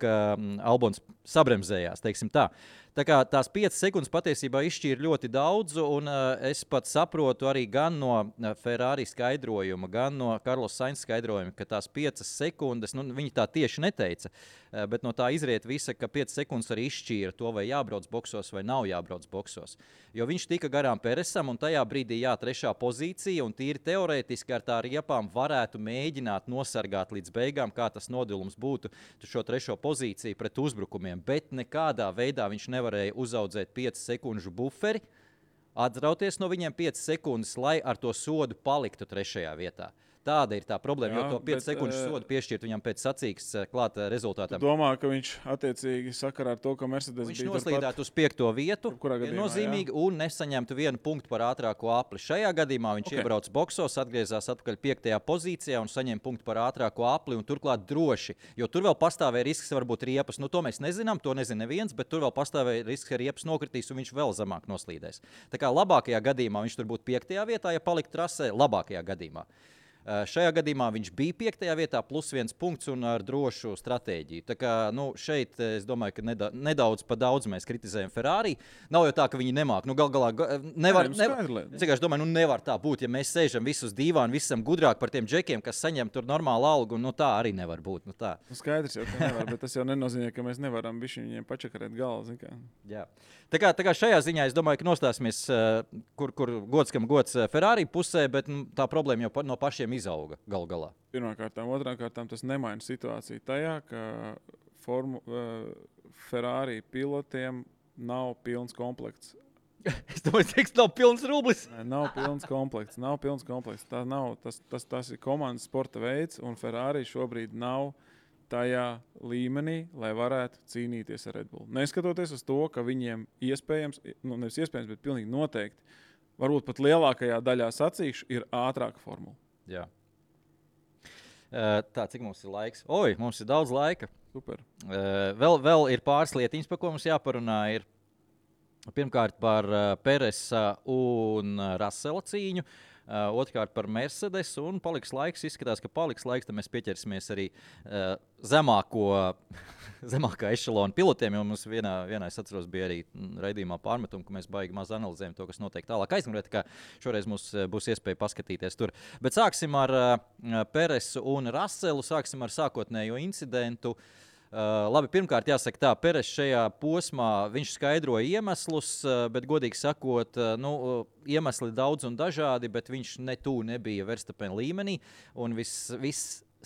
ka Albons sabremzējās, teiksim tā. Tā kā tās 5 sekundes patiesībā izšķīra ļoti daudz, un es pat saprotu arī gan no Ferrari skaidrojuma, gan no Carlos Sainz skaidrojuma, ka tās 5 sekundes, viņi tā tieši neteica, bet no tā izriet visa, ka 5 sekundes arī izšķīra to, vai jābrauc boksos vai nav jābrauc boksos. Jo viņš tika garām Peresam, un tajā brīdī 3. pozīcija, un tīri teorētiski ar tā riepām varētu mēģināt nosargāt līdz beigām, kā tas nodilums būtu šo 3. pozīciju pret uzbrukumiem, bet nekādā veidā viņš nevarēja uzaudzēt 5 sekundžu buferi, atrauties no viņiem 5 sekundes, lai ar to sodu paliktu 3. vietā. Tāda ir tā problēma, jo to 5 sekundžu sodu piešķirt viņam pēc sacīks klāta rezultātam. Tu domā, ka viņš attiecīgi sakarā ar to, ka Mercedes viņš noslīdētu uz 5. vietu, nozīmīgi, un nesaņemtu 1 punktu par ātrāko apli. Šajā gadījumā viņš iebrauc boksos, atgriezās atpakaļ 5. pozīcijā un saņem punktu par ātrāko apli, un turklāt droši, jo tur vēl pastāvēja risks varbūt riepas. To mēs nezinām, to nezina neviens, bet tur vēl pastāvēja risks, ka riepas nokritīs un viņš vēl zemāk noslīdēs. Tā kā labākajā gadījumā viņš tur būtu 5. vietā, ja paliktu trasē, labākajā gadījumā. Šajā gadījumā viņš bija 5. vietā, plus 1 punkts un ar drošu stratēģiju. Tā kā šeit es domāju, ka nedaudz pa daudz mēs kritizējam Ferrari. Nav jau tā, ka viņi nemāk. Gal galā nevar tā būt, ja mēs sēžam visus dīvāni, visi esam gudrāk par tiem džekiem, kas saņem tur normālu algu. Tā arī nevar būt. Skaidrs jau, ka nevar, bet tas jau nenozīmē, ka mēs nevaram bišķi viņiem pačakarēt galvu. Jā. Tā kā šajā ziņā es domāju, ka nostāsimies, kur gods kam gods Ferrari pusē, bet tā problēma jau no pašiem izauga galu galā. Pirmkārtām, otrkārtām tas nemaina situāciju tajā, ka Ferrari pilotiem nav pilns komplekts. Es domāju, ka nav pilns rublis. Nav pilns komplekts. Tas ir komandas sporta veids, un Ferrari šobrīd nav tajā līmenī, lai varētu cīnīties ar Red Bull. Neskatoties uz to, ka viņiem nevis iespējams, bet pilnīgi noteikti, varbūt pat lielākajā daļā sacīkšu, ir ātrāka formula. Jā. Tā, cik mums ir laiks? Mums ir daudz laika. Super. Vēl ir pāris lietiņas, par ko mums jāparunā. Ir pirmkārt par Peresa un Russella cīņu. Otrkārt par Mercedes, un izskatās, ka paliks laiks, tad mēs pieķersimies arī zemākā ešalona pilotiem, jo mums vienā es atceros, bija arī raidījumā pārmetumi, ka mēs baigi maz analizējam to, kas notiek tālāk aizmugurē, tā kā šoreiz mums būs iespēja paskatīties tur. Bet sāksim ar Peresu un Russellu, sāksim ar sākotnējo incidentu. Labi, pirmkārt jāsaka tā, Peres šajā posmā viņš skaidroja iemeslus, bet godīgi sakot, iemesli daudz un dažādi, bet viņš nebija Verstappen līmenī, un viss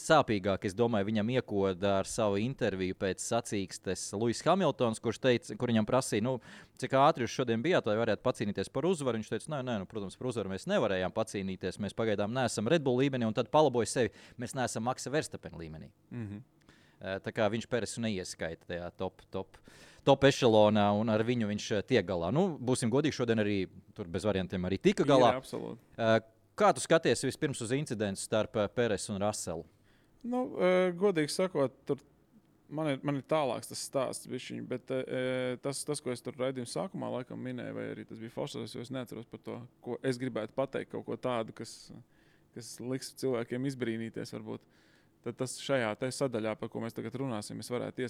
sāpīgāk, es domāju, viņam iekoda ar savu interviju pēc sacīkstes Lewis Hamiltons, kur viņam prasīja, cik ātri jūs šodien bijāt, lai varētu pacīnīties par uzvaru. Viņš teica, protams, par uzvaru mēs nevarējām pacīnīties, mēs pagaidām neesam Red Bull līmenī, un tad palaboja sevi, mēs neesam Maxa Verstappen līmenī. Tā kā viņš Peresu neieskaita tajā top ešalonā, un ar viņu viņš tiek galā. Būsim godīgi, šodien arī tur bez variantiem arī tika galā. Jā, absolūti. Kā tu skaties vispirms uz incidentu starp Peresu un Russellu? Godīgi sakot, tur man ir tālāks tas stāsts bišķiņ, bet tas, ko es tur raidījuma sākumā laikam minēju, vai arī tas bija Fosters, jo es neatceros par to, ko es gribētu pateikt, kaut ko tādu, kas liks cilvēkiem izbrīnīties varbūt. Tad tas šajā sadaļā, par ko mēs tagad runāsim, es varētu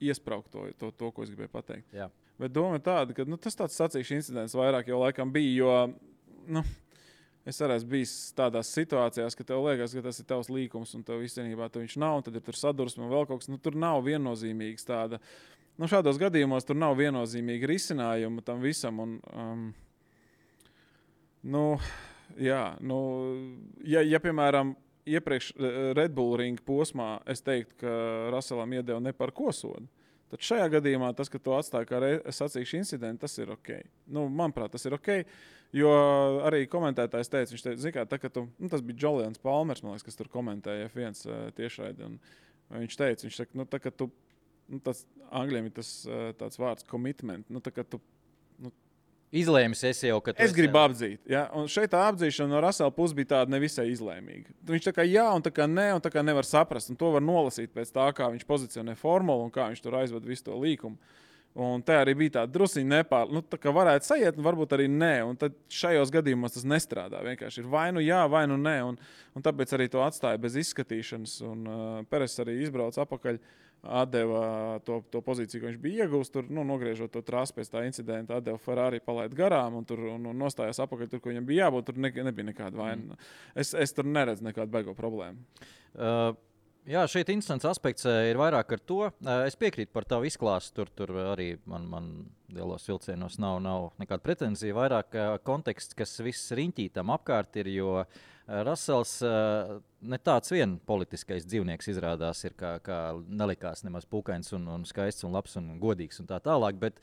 iespraukt to, ko es gribēju pateikt. Jā. Bet doma ir tāda, ka tas tāds sacīkšu incidents vairāk jau laikam bija, jo es arī esmu bijis tādās situācijās, ka tev liekas, ka tas ir tavs līkums un tev īstenībā viņš nav, un tad ir tur sadursme un vēl kaut kas. Tur nav viennozīmīgs tāda. Šādos gadījumos tur nav viennozīmīga risinājuma tam visam. Ja piemēram, iepriekš Red Bull ringa posmā es teiktu, ka Russellam iedeva ne par ko sodu. Tad šajā gadījumā tas, ka to atstāja kā sacīkšu incidentu, tas ir ok. Manuprāt, tas ir ok, jo arī komentētājs teica, viņš teica, zikā, tā, ka tas bija Julians Palmers, man liekas, kas tur komentēja F1 tiešraidi, un viņš saka, tā, ka tu, tas angļiem ir tas tāds vārds commitment, tā, ka tu, izlēmis esi jau, ka es gribu apdzīt. Ja? Un šeit tā apdzīšana no Russella puses bija tāda nevisai izlēmīga. Viņš tā kā jā, un tā kā nē, un tā kā nevar saprast. Un to var nolasīt pēc tā, kā viņš pozicionē formulu un kā viņš tur aizved visu to līkumu. Un te arī bija tāda drusiņa tā kā varētu sajiet, un varbūt arī nē. Un tad šajos gadījumos tas nestrādā. Vienkārši ir vai nu jā, vai nu nē. Un tāpēc arī to atstāja bez izskatīšanas. Un Peres arī izbrauca apakaļ, atdeva to pozīciju, ko viņš bija iegūst. Tur, nogriežot to trasi pēc tā incidenta, atdeva Ferrari palaid garām un nostājās apakaļ tur, ko viņam bija jābūt. Tur nebija nekāda vaina. Es tur neredzu nekādu baigo problēmu. Jā, šeit interesants aspekts ir vairāk ar to. Es piekrītu par tavu izklāstu. Tur arī man lielos vilcienos nav nekāda pretenzija. Vairāk konteksts, kas viss riņķī tam apkārt ir, jo Russells ne tāds vien politiskais dzīvnieks izrādās ir, kā nelikās nemaz pukains un skaists un labs un godīgs un tā tālāk. Bet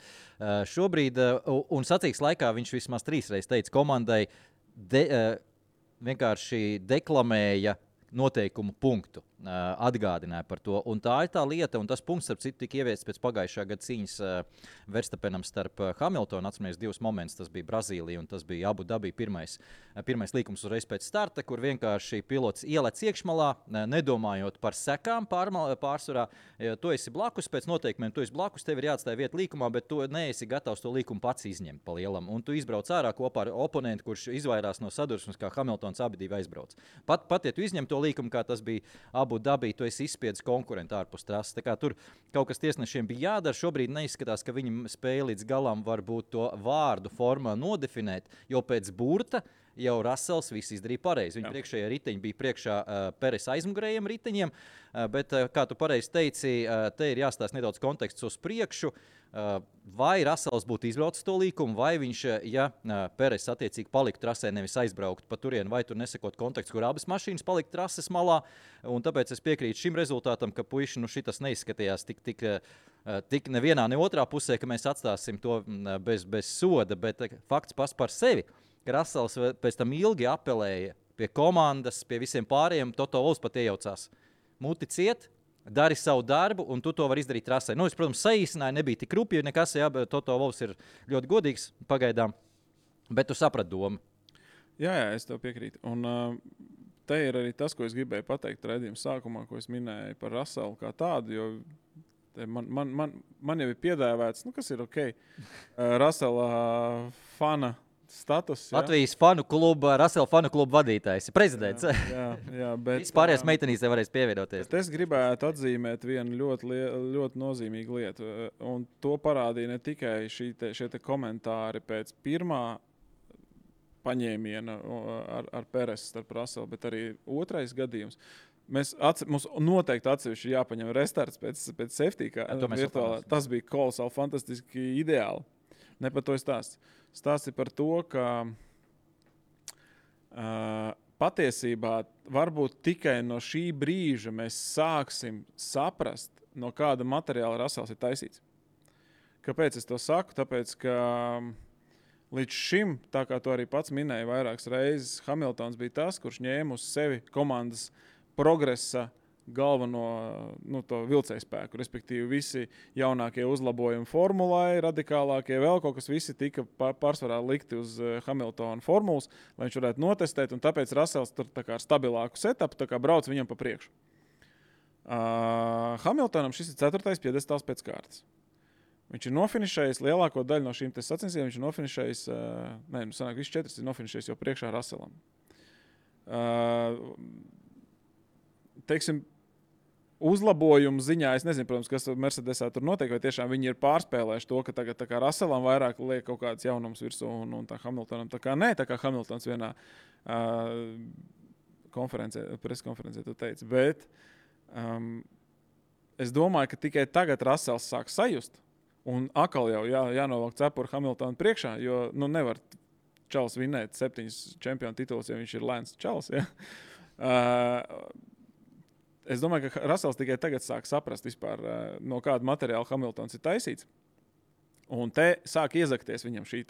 šobrīd, un sacīks laikā, viņš vismaz 3 reizes teica komandai, vienkārši deklamēja noteikumu punktu, atgādināja par to. Un tā ir tā lieta, un tas punkts, starp citu, tika ieviests pēc pagājušā gada cīņas Verstappenam starp Hamiltonu. Atceramies 2 momentus, tas bija Brazīlija un tas bija Abu Dabī pirmais līkums uzreiz pēc starta, kur vienkārši pilots ielec iekšmalā, nedomājot par sekām pārsvarā. Tu esi blakus, pēc noteikumiem tu esi blakus, tev ir jāatstāj vieta līkumā, bet tu neesi gatavs to līkumu pats izņemt pa lielam. Un tu izbrauc ārā kopā ar oponentu, kurš izvairās no sadursmes, kā Hamiltons abi divi aizbrauc. Pat ja tu izņem to līkumu, kā tas bija Abu Dabī, tu esi izspiedis konkurentu ārpus trases. Tā kā tur kaut kas tiesnešiem bija jādara. Šobrīd neizskatās, ka viņi spēja līdz galam varbūt to vārdu formā nodefinēt, jo pēc burta jau Russells viss izdarīja pareizi. Viņa priekšējā riteņi bija priekšā Peres aizmugurējiem riteņiem, bet, kā tu pareizi teici, te ir jāstāsta nedaudz konteksts uz priekšu. Vai Russells būtu izbraucis to līkumu, vai viņš, ja Peres attiecīgi paliktu trasē, nevis aizbraukt pa turienu, vai tur nesakot kontekstu, kur abas mašīnas paliktu trases malā. Un tāpēc es piekrītu šim rezultātam, ka puiši, šitas neizskatījās tik nevienā, ne otrā pusē, ka mēs atstāsim to bez soda, bet fakts pats par sevi, ka Russells pēc tam ilgi apelēja pie komandas, pie visiem pārējiem, Toto Wolffs pat iejaucās. Muti ciet, dari savu darbu, un tu to vari izdarīt trasē. Es, protams, saīsināju, nebija tik rupji nekas, bet Toto Wolffs ir ļoti godīgs pagaidām, bet tu saprati domu. Jā, es tev piekrītu. Un te ir arī tas, ko es gribēju pateikt raidījuma sākumā, ko es minēju par Russellu kā tādu, jo man jau ir piedāvāts, kas ir ok, Russella fana status. Ja? Latvijas Russella fanu kluba vadītājs, prezidents. Jā, bet vispārējās meitenītes varēs pievienoties. Es gribētu atzīmēt vienu ļoti nozīmīgu lietu, un to parādīja ne tikai šie komentāri pēc pirmā paņēmiena ar Peres starp Russellu, bet arī otrais gadījums. Mums noteikti atsevišķi jāpaņem restarts pēc safety, kā virtuālā. Tas bija kolosāli, fantastiski ideāli. Ne par to stāsts. Stāsts ir par to, ka patiesībā varbūt tikai no šī brīža mēs sāksim saprast, no kāda materiāla Russells ir taisīts. Kāpēc es to saku? Tāpēc, ka līdz šim, tā kā to arī pats minēja vairākas reizes, Hamiltons bija tas, kurš ņēma uz sevi komandas progresa galveno to vilcēju spēku, respektīvi visi jaunākie uzlabojumi formulai, radikālākie vēl kaut kas, visi tika pārsvarā likti uz Hamiltona formulas, lai viņš varētu notestēt, un tāpēc Russells tur tā kā ar stabilāku setupu, tā kā brauc viņam pa priekšu. Hamiltonam šis ir 4. piedestāls pēc kārtas. Viņš ir nofinišējis lielāko daļu no šīm sacensībām, viņš ir nofinišējis, sanāk, visi 4 ir nofinišējis jau priekšā Russellam. Teiksim, uzlabojumu ziņā, es nezinu, protams, kas Mercedesā tur notiek, vai tiešām viņi ir pārspēlējuši to, ka tagad tā kā Russellam vairāk liek kaut kāds jaunums virsū un tā Hamiltonam tā kā nē, tā kā Hamiltons vienā preskonferencē tu teici. Bet es domāju, ka tikai tagad Russells sāk sajust un atkal jau jānovelk cepuri Hamiltonu priekšā, jo nevar čals vinēt 7 čempionu tituls, ja viņš ir lēns čals. Ja? Es domāju, ka Russells tikai tagad sāk saprast vispār, no kāda materiāla Hamiltons ir taisīts. Un te sāk iezakties viņam šī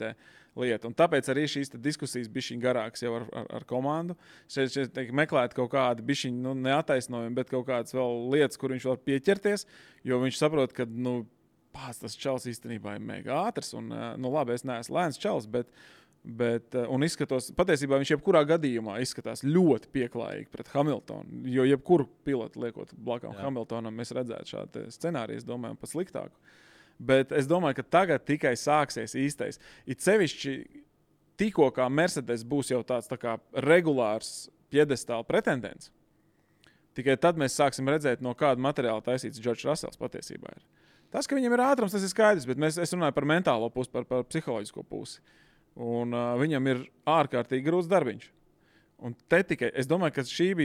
lieta. Un tāpēc arī šīs diskusijas bišķiņ garākas jau ar komandu. Šeit meklēt kaut kādu bišķiņ, neataisnojumu, bet kaut kādas vēl lietas, kur viņš var pieķerties, jo viņš saprot, ka, tas čals īstenībā ir mega ātrs. Un, labi, es neesmu lēns čals, bet un izskatos, patiesībā viņš jebkurā gadījumā izskatās ļoti pieklājīgi pret Hamiltonu, jo jebkuru pilotu liekot blakām Hamiltonam, mēs redzētu šādu scenāriju, es domāju, pat sliktāku. Bet es domāju, ka tagad tikai sāksies īstais. It sevišķi tikko kā Mercedes būs jau tāds tā kā regulārs piedestāla pretendents. Tikai tad mēs sāksim redzēt, no kāda materiāla taisīts Džordžs Rasels patiesībā ir. Tas, ka viņam ir ātrums, tas ir skaidrs, bet es runāju par mentālo pusi, par psiholoģisko pusi. Un viņam ir ārkārtīgi grūts darbiņš. Un te tikai, es domāju, ka šis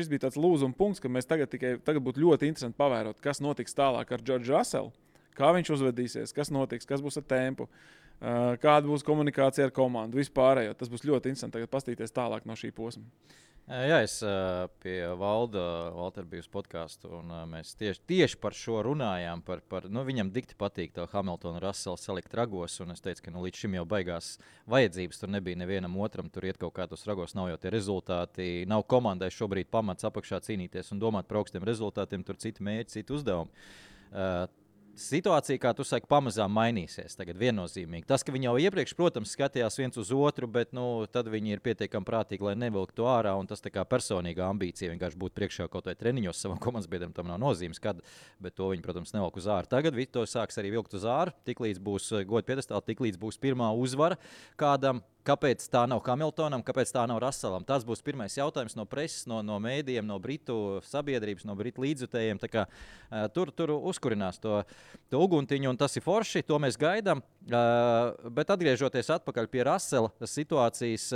bija tāds lūzuma punkts, ka mēs tagad būtu ļoti interesanti pavērot, kas notiks tālāk ar Džordžu Raselu, kā viņš uzvedīsies, kas notiks, kas būs ar tempu, kāda būs komunikācija ar komandu, vispārējo. Tas būs ļoti interesanti tagad pastīties tālāk no šī posma. Jā, es pie Valtera biju uz podcastu, un mēs tieši par šo runājām. Viņam dikti patīk to Hamiltonu Raselu salikt ragos, un es teicu, ka līdz šim jau baigās vajadzības. Tur nebija nevienam otram, tur iet kaut kā tos ragos, nav jau tie rezultāti. Nav komandai šobrīd pamats apakšā cīnīties un domāt par augstiem rezultātiem, tur citi mērķi, citi uzdevumi. Situācija, kā tu saki, pamazām mainīsies. Tagad viennozīmīgi. Tas, ka viņi jau iepriekš, protams, skatījās viens uz otru, bet tad viņi ir pietiekami prātīgi, lai nevilktu to ārā. Un tas tā kā personīga ambicija vienkārši būt priekšā kaut vai treniņos savam komandas biedram, tam nav nozīmes, kad, bet to viņi, protams, nevilk uz āru. Tagad to sāks arī vilkt uz āru, tiklīdz būs goda piedestāla, tiklīdz būs pirmā uzvara kādam. Kāpēc tā nav Hamiltonam, kāpēc tā nav Raselam? Tas būs pirmais jautājums no preses, no mēdījiem, no britu sabiedrības, no britu līdzjutējiem. Tur uzkurinās to uguntiņu, un tas ir forši, to mēs gaidām. Bet atgriežoties atpakaļ pie Rasela situācijas,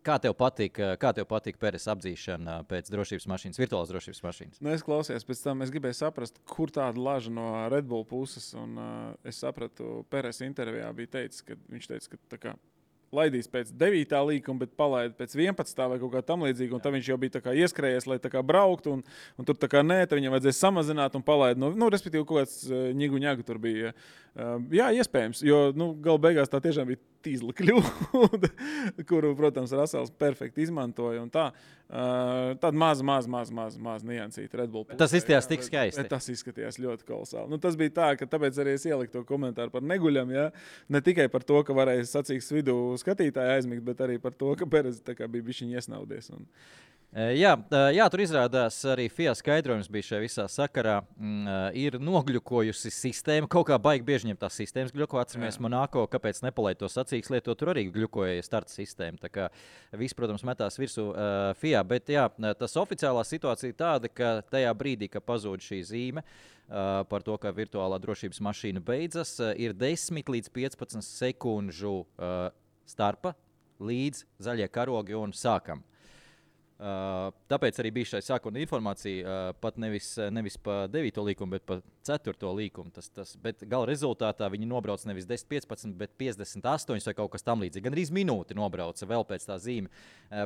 kā tev patīk Peres apdzīšana pēc drošības mašīnas, virtuālās drošības mašīnas? Es klausījos, pēc tam es gribēju saprast, kur tāda laža no Red Bull puses, un es sapratu, Peres intervijā bija teicis, ka viņš teica, ka tā kā laidīs pēc 9. līkuma, bet palaida pēc 11. vai kaut kā tam līdzīga, un tad viņš jau bija tā kā ieskrējies, lai tā kā brauktu, un tur tā kā nē, tad viņam vajadzēja samazināt un palaida. Respektīvi, kaut kāds ņigu tur bija. Jā, iespējams, jo gala beigās tā tiešām bija tīzla kļūda, kuru, protams, Rasels perfekti izmantoja, un tā. Tāda maz niansīta Red Bull. Tas izskatījās tik skaisti. Tas izskatījās ļoti kolosāli. Tas bija tā, ka tāpēc arī es ieliku to komentāru par neguļam, ja? Ne tikai par to, ka varēja sacīks vidū skatītāji aizmigt, bet arī par to, ka Perez tā kā bija bišķiņ iesnaudies. Jā, tur izrādās arī FIA skaidrojums bija šajā visā sakarā. Ir nogļukojusi sistēma, kaut kā baigi bieži ņem tās sistēmas gļuko, atceramies Monako, kāpēc nepalaid to sacīks lietot, tur arī gļukoja starta sistēma. Tā kā viss, protams, metās virsū FIA, bet jā, tas oficiālā situācija tāda, ka tajā brīdī, ka pazūd šī zīme par to, ka virtuālā drošības mašīna beidzas, ir 10 līdz 15 sekundžu starpa līdz zaļie karogi un sākam. Tāpēc arī bija šai sākuma informācija pat nevis pa 9. līkumu, bet pa 4. līkumu. Bet gala rezultātā viņi nobrauc nevis 10-15, bet 58 vai kaut kas tam līdzīgi. Gan arī minūti nobrauca vēl pēc tā zīme.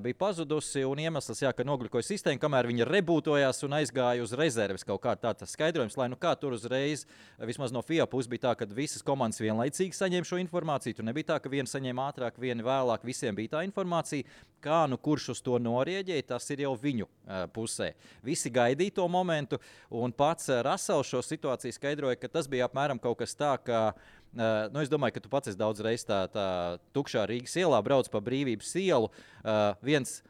Bija pazudusi un iemesls, ka nogļukoja sistēma, kamēr viņa rebūtojās un aizgāja uz rezerves kaut kā tāds skaidrojums, lai kā tur uzreiz, vismaz no FIA puses bija tā, ka visas komandas vienlaicīgi saņēma šo informāciju. Tur nebija tā, ka viena saņēma ātrāk, viena vēlāk, visiem bija tā informācija. Kā kurš uz to norieģēja, tas ir jau viņu pusē. Visi gaidīja to momentu, un pats Rasels šo situāciju skaidroja, ka tas bija apmēram kaut kas tā, ka es domāju, ka tu pats esi daudz reiz tā tukšā Rīgas ielā brauc pa Brīvības ielu. Viens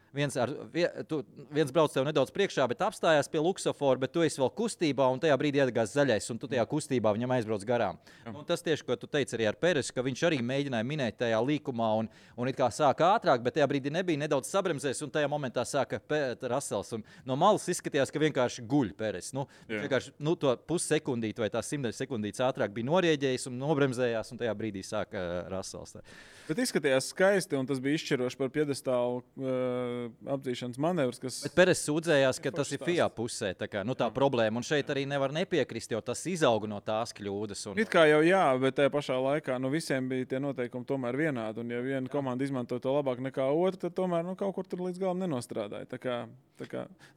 brauc tev nedaudz priekšā, bet apstājās pie luksofora, bet tu esi vēl kustībā, un tajā brīdī iedegās zaļais, un tu tajā kustībā viņam aizbrauc garām. Tas tieši, ko tu teici arī ar Peresu, ka viņš arī mēģināja minēt tajā līkumā, un it kā sāka ātrāk, bet tajā brīdī nebija nedaudz sabremzēs, un tajā momentā sāka Rasels. Un no malas izskatījās, ka vienkārši guļ Peres. Vienkārši to pussekundīti vai tās 100 sekundītes ātrāk bija norieģējis un nobremzējās, un tajā brīdī sāka Rasels. Bet izskatījās skaisti, un tas bija izšķiroši par piedestālu apdzīšanas manevrs. Bet Peres sūdzējās, ka tas ir FIA pusē, tā problēma, un šeit arī nevar nepiekrist, jo tas izauga no tās kļūdas. It kā jau jā, bet tajā pašā laikā visiem bija tie noteikumi tomēr vienādi, un ja viena komanda izmanto to labāk nekā otra, tad tomēr kaut kur tur līdz galam nenostrādāja.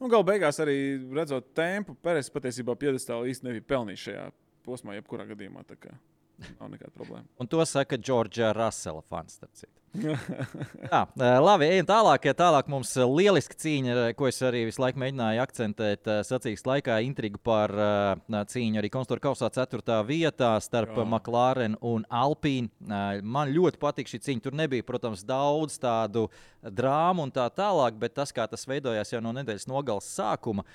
Galu beigās arī redzot tempu, Peres patiesībā piedestālu īsti nebija pelnījis šajā posmā, jebkurā gadījumā. Nav nekāda problēma. Un to saka Džordža Rasela fans. Labi, ejam tālāk. Tālāk mums lieliska cīņa, ko es arī visu laiku mēģināju akcentēt sacīkstu laikā. Intriga par cīņu arī konstruktūra kausā 4. vietā starp McLaren un Alpine. Man ļoti patīk šī cīņa. Tur nebija, protams, daudz tādu drāmu un tā tālāk, bet tas, kā tas veidojās jau no nedēļas nogalas sākuma,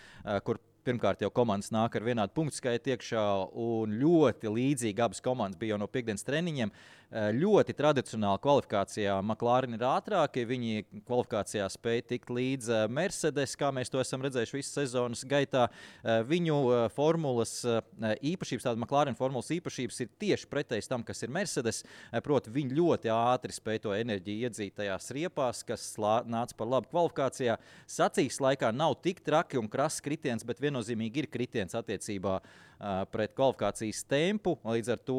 kur Pirmkārt, jau komandas nāk ar vienādu punktu skaitu iekšā, un ļoti līdzīgi abas komandas bija jau no piekdienas treniņiem. Ļoti tradicionāli kvalifikācijā McLaren ir ātrāki. Viņi kvalifikācijā spēja tikt līdz Mercedes, kā mēs to esam redzējuši visas sezonas gaitā. Viņu formulas īpašības, tāda McLaren formulas īpašības ir tieši pretējas tam, kas ir Mercedes. Proti, viņi ļoti ātri spēja to enerģiju iedzīt tajās riepās, kas nāca par labu kvalifikācijā. Sacīksts laikā nav tik traki un krass kritiens, bet viennozīmīgi ir kritiens attiecībā pret kvalifikācijas tempu. Līdz ar to